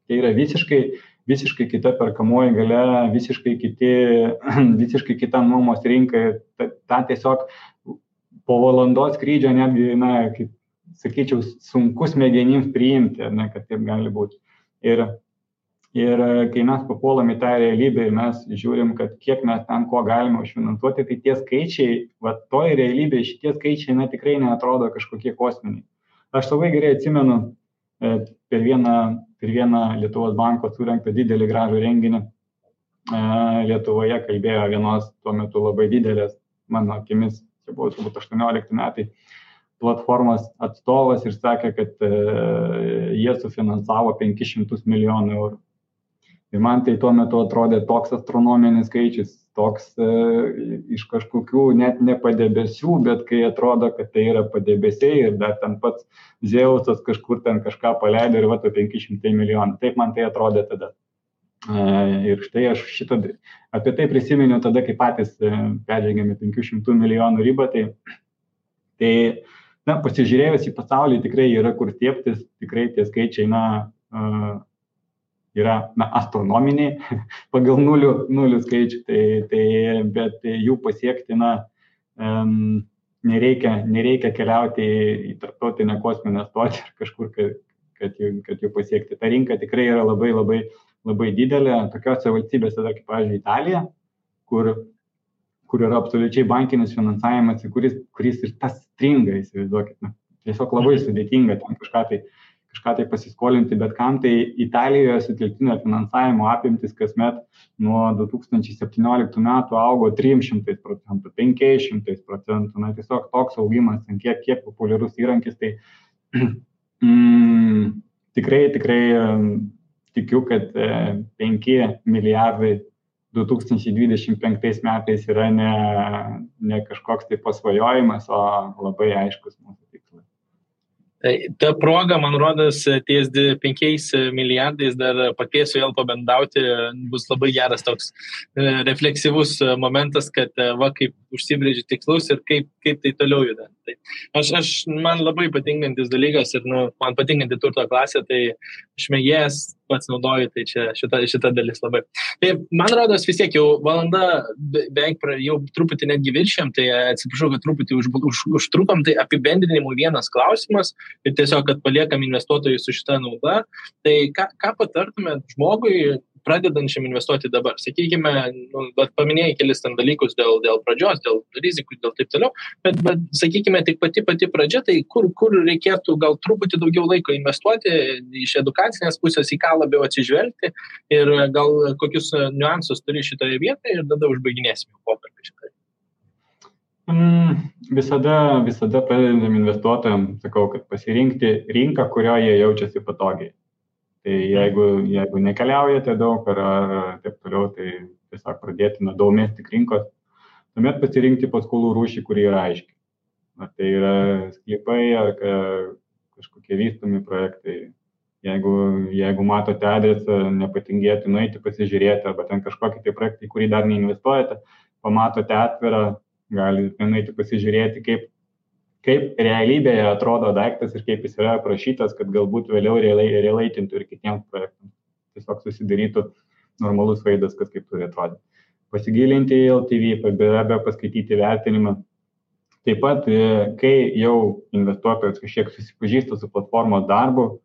Tai yra visiškai kita perkamoji galia, visiškai kita nuomos rinka. Ta tiesiog po valandos skrydžio netgi, kaip sakyčiau, sunkus smegenims priimti, ar ne, kad taip gali būti. Ir kai mes papuolam į tą realybę ir mes žiūrim, kad kiek mes ten ko galime užfinansuoti, tai tie skaičiai, toj realybėje šitie skaičiai tikrai neatrodo kažkokie kosminiai. Aš labai gerai atsimenu per vieną Lietuvos banko surengtą didelį gražų renginį Lietuvoje kalbėjo vienos tuo metu labai didelės, mano akimis, čia buvo turbūt 18 metai, platformos atstovas ir sakė, kad jie sufinansavo 500 milijonų eurų. Ir man tai tuo metu atrodė toks astronominis skaičius, toks iš kažkokių net ne padebesių, bet kai atrodo, kad tai yra padebesiai ir dar ten pats Zeusas kažkur ten kažką paleido ir 500 milijonų. Taip man tai atrodė tada. Ir štai aš apie tai prisiminiau tada, kai patys peržengėme 500 milijonų ribą, tai pasižiūrėjus į pasaulį tikrai yra kur stiebtis, tikrai tie skaičiai yra astronominiai pagal nulių skaičių, bet jų pasiekti nereikia keliauti į tarptautinę kosminę stotį ar kažkur, kad jų pasiekti. Ta rinka tikrai yra labai, labai, labai didelė. Tokiose valstybėse, kaip pavyzdžiui Italija, kur yra absoliučiai bankinis finansavimas, kuris ir tas stringa, įsivaizduokit. Tiesiog labai sudėtinga ten kažką tai pasiskolinti, bet kam tai Italijoje sutelktinio finansavimo apimtis kasmet nuo 2017 metų augo 300%, 500%. Tiesiog toks augimas, kiek populiarus įrankis, tai tikrai tikiu, kad 5 milijardai 2025 metais yra ne kažkoks tai pasvajojimas, o labai aiškus mūsų tikslas. Ta proga, man rodos, ties 5 milijardais dar pakviesiu vėl pabendauti, bus labai geras toks refleksyvus momentas, kad kaip užsibrėži tikslus ir kaip tai toliau juda. Tai man labai patinkantis dalykas ir man patinkanti turto klasė, tai aš mėgėjas pats naudoju, tai čia šita dalis labai. Tai man rodos vis tiek jau valanda beveik jau truputį netgi viršėm, tai atsiprašau, kad truputį užtrukom, tai apibendrinimų vienas klausimas ir tiesiog, kad paliekam investuotojus su šita nauda. Tai ką patartumėt žmogui pradedančiam investuoti dabar? Sakykime, paminėjai kelis ten dalykus dėl pradžios, dėl rizikų, dėl taip toliau, bet sakykime, tik pati pradžia, tai kur reikėtų gal truputį daugiau laiko investuoti iš edukacinės pusės, į ką labiau atsižvelgti ir gal kokius niuansus turi šitoje vietoje ir tada užbaiginėsime pokalbį šitoje. Visada pradedam investuotojams, sakau, kad pasirinkti rinką, kurioje jie jaučiasi patogiai. Tai jeigu nekeliaujate daug ar taip toliau, tai tiesiog pradėti nuo domestik rinkos, tuomet pasirinkti paskolų rūšį, kuri yra aiški. Ar tai yra sklypai, ar kažkokie vystomi projektai. Jeigu matote adresą, nepatingėti nueiti pasižiūrėti, arba ten kažkokį tai projektą, į kurį dar neinvestuojate, pamatote atvirą, galite nueiti pasižiūrėti, kaip realybėje atrodo daiktas ir kaip jis yra aprašytas, kad galbūt vėliau relaitintų ir kitiems projektams. Tiesiog susidarytų normalus vaizdas, kas kaip turi atrodyti. Pasigilinti į LTV, be abejo paskaityti vertinimą. Taip pat, kai jau investuotojas kažkiek susipažįsta su platformos darbu,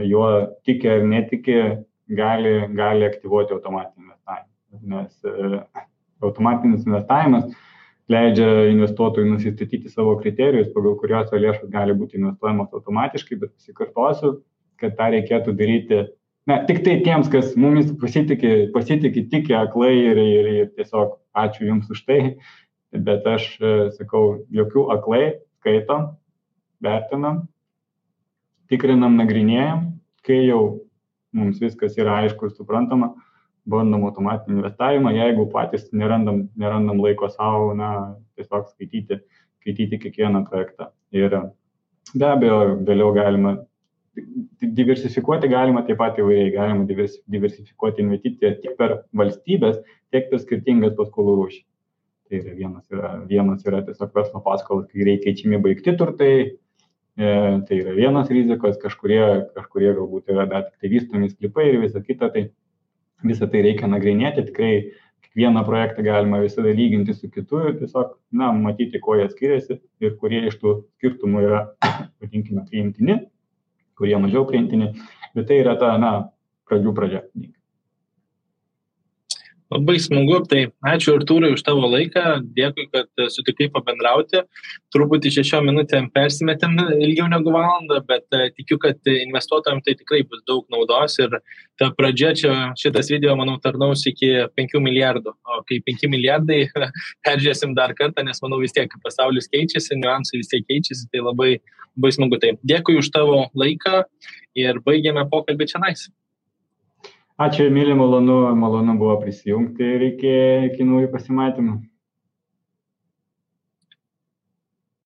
juo tiki ar netiki, gali aktyvuoti automatinį investavimą. Nes automatinis investavimas leidžia investuotojui nusistatyti savo kriterijus, pagal kurios lėšos gali būti investuojamos automatiškai, bet pasikartosiu, kad tą reikėtų daryti tik tai tiems, kas mumis pasitikė tiki aklai ir tiesiog ačiū Jums už tai, bet aš sakau, jokių aklai, skaitom, vertinam, tikrinam, nagrinėjam, kai jau mums viskas yra aišku ir suprantama, bandom automatinį investavimą, jeigu patys nerandam laiko savo, tiesiog skaityti kiekvieną projektą. Ir be abejo, vėliau galima diversifikuoti, galima taip pat įvairiai, galima diversifikuoti investiciją tiek per valstybės, tiek per skirtingas paskolų rūšį. Tai vienas yra tiesiog verslo paskolos, kai reikia keičiami baigti turtai, tai yra vienas rizikos, kažkurie galbūt yra dar tik tai vystomi sklypai ir visa kita, tai visą tai reikia nagrinėti, tikrai kiekvieną projektą galima visada lyginti su kitu ir tiesiog, matyti, kuo jie skiriasi ir kurie iš tų skirtumų yra, vadinkime, priimtini, kurie mažiau priimtini, bet tai yra ta, pradžių pradžia. Labai smagu, tai ačiū Artūrai už tavo laiką, dėkui, kad sutikai pabendrauti. Truputį 6 minutėm persimetėm ilgiau negu valandą, bet tikiu, kad investuotojams tai tikrai bus daug naudos ir ta pradžia šitas video, manau, tarnaus iki 5 milijardų. O kai 5 milijardai peržiūrėsim dar kartą, nes manau vis tiek pasaulis keičiasi, niuansai vis tiek keičiasi, tai labai smagu. Tai dėkui už tavo laiką ir baigėme pokalbį čionais. Ačiū, Emilija, malonu buvo prisijungti ir iki naujų pasimatymų.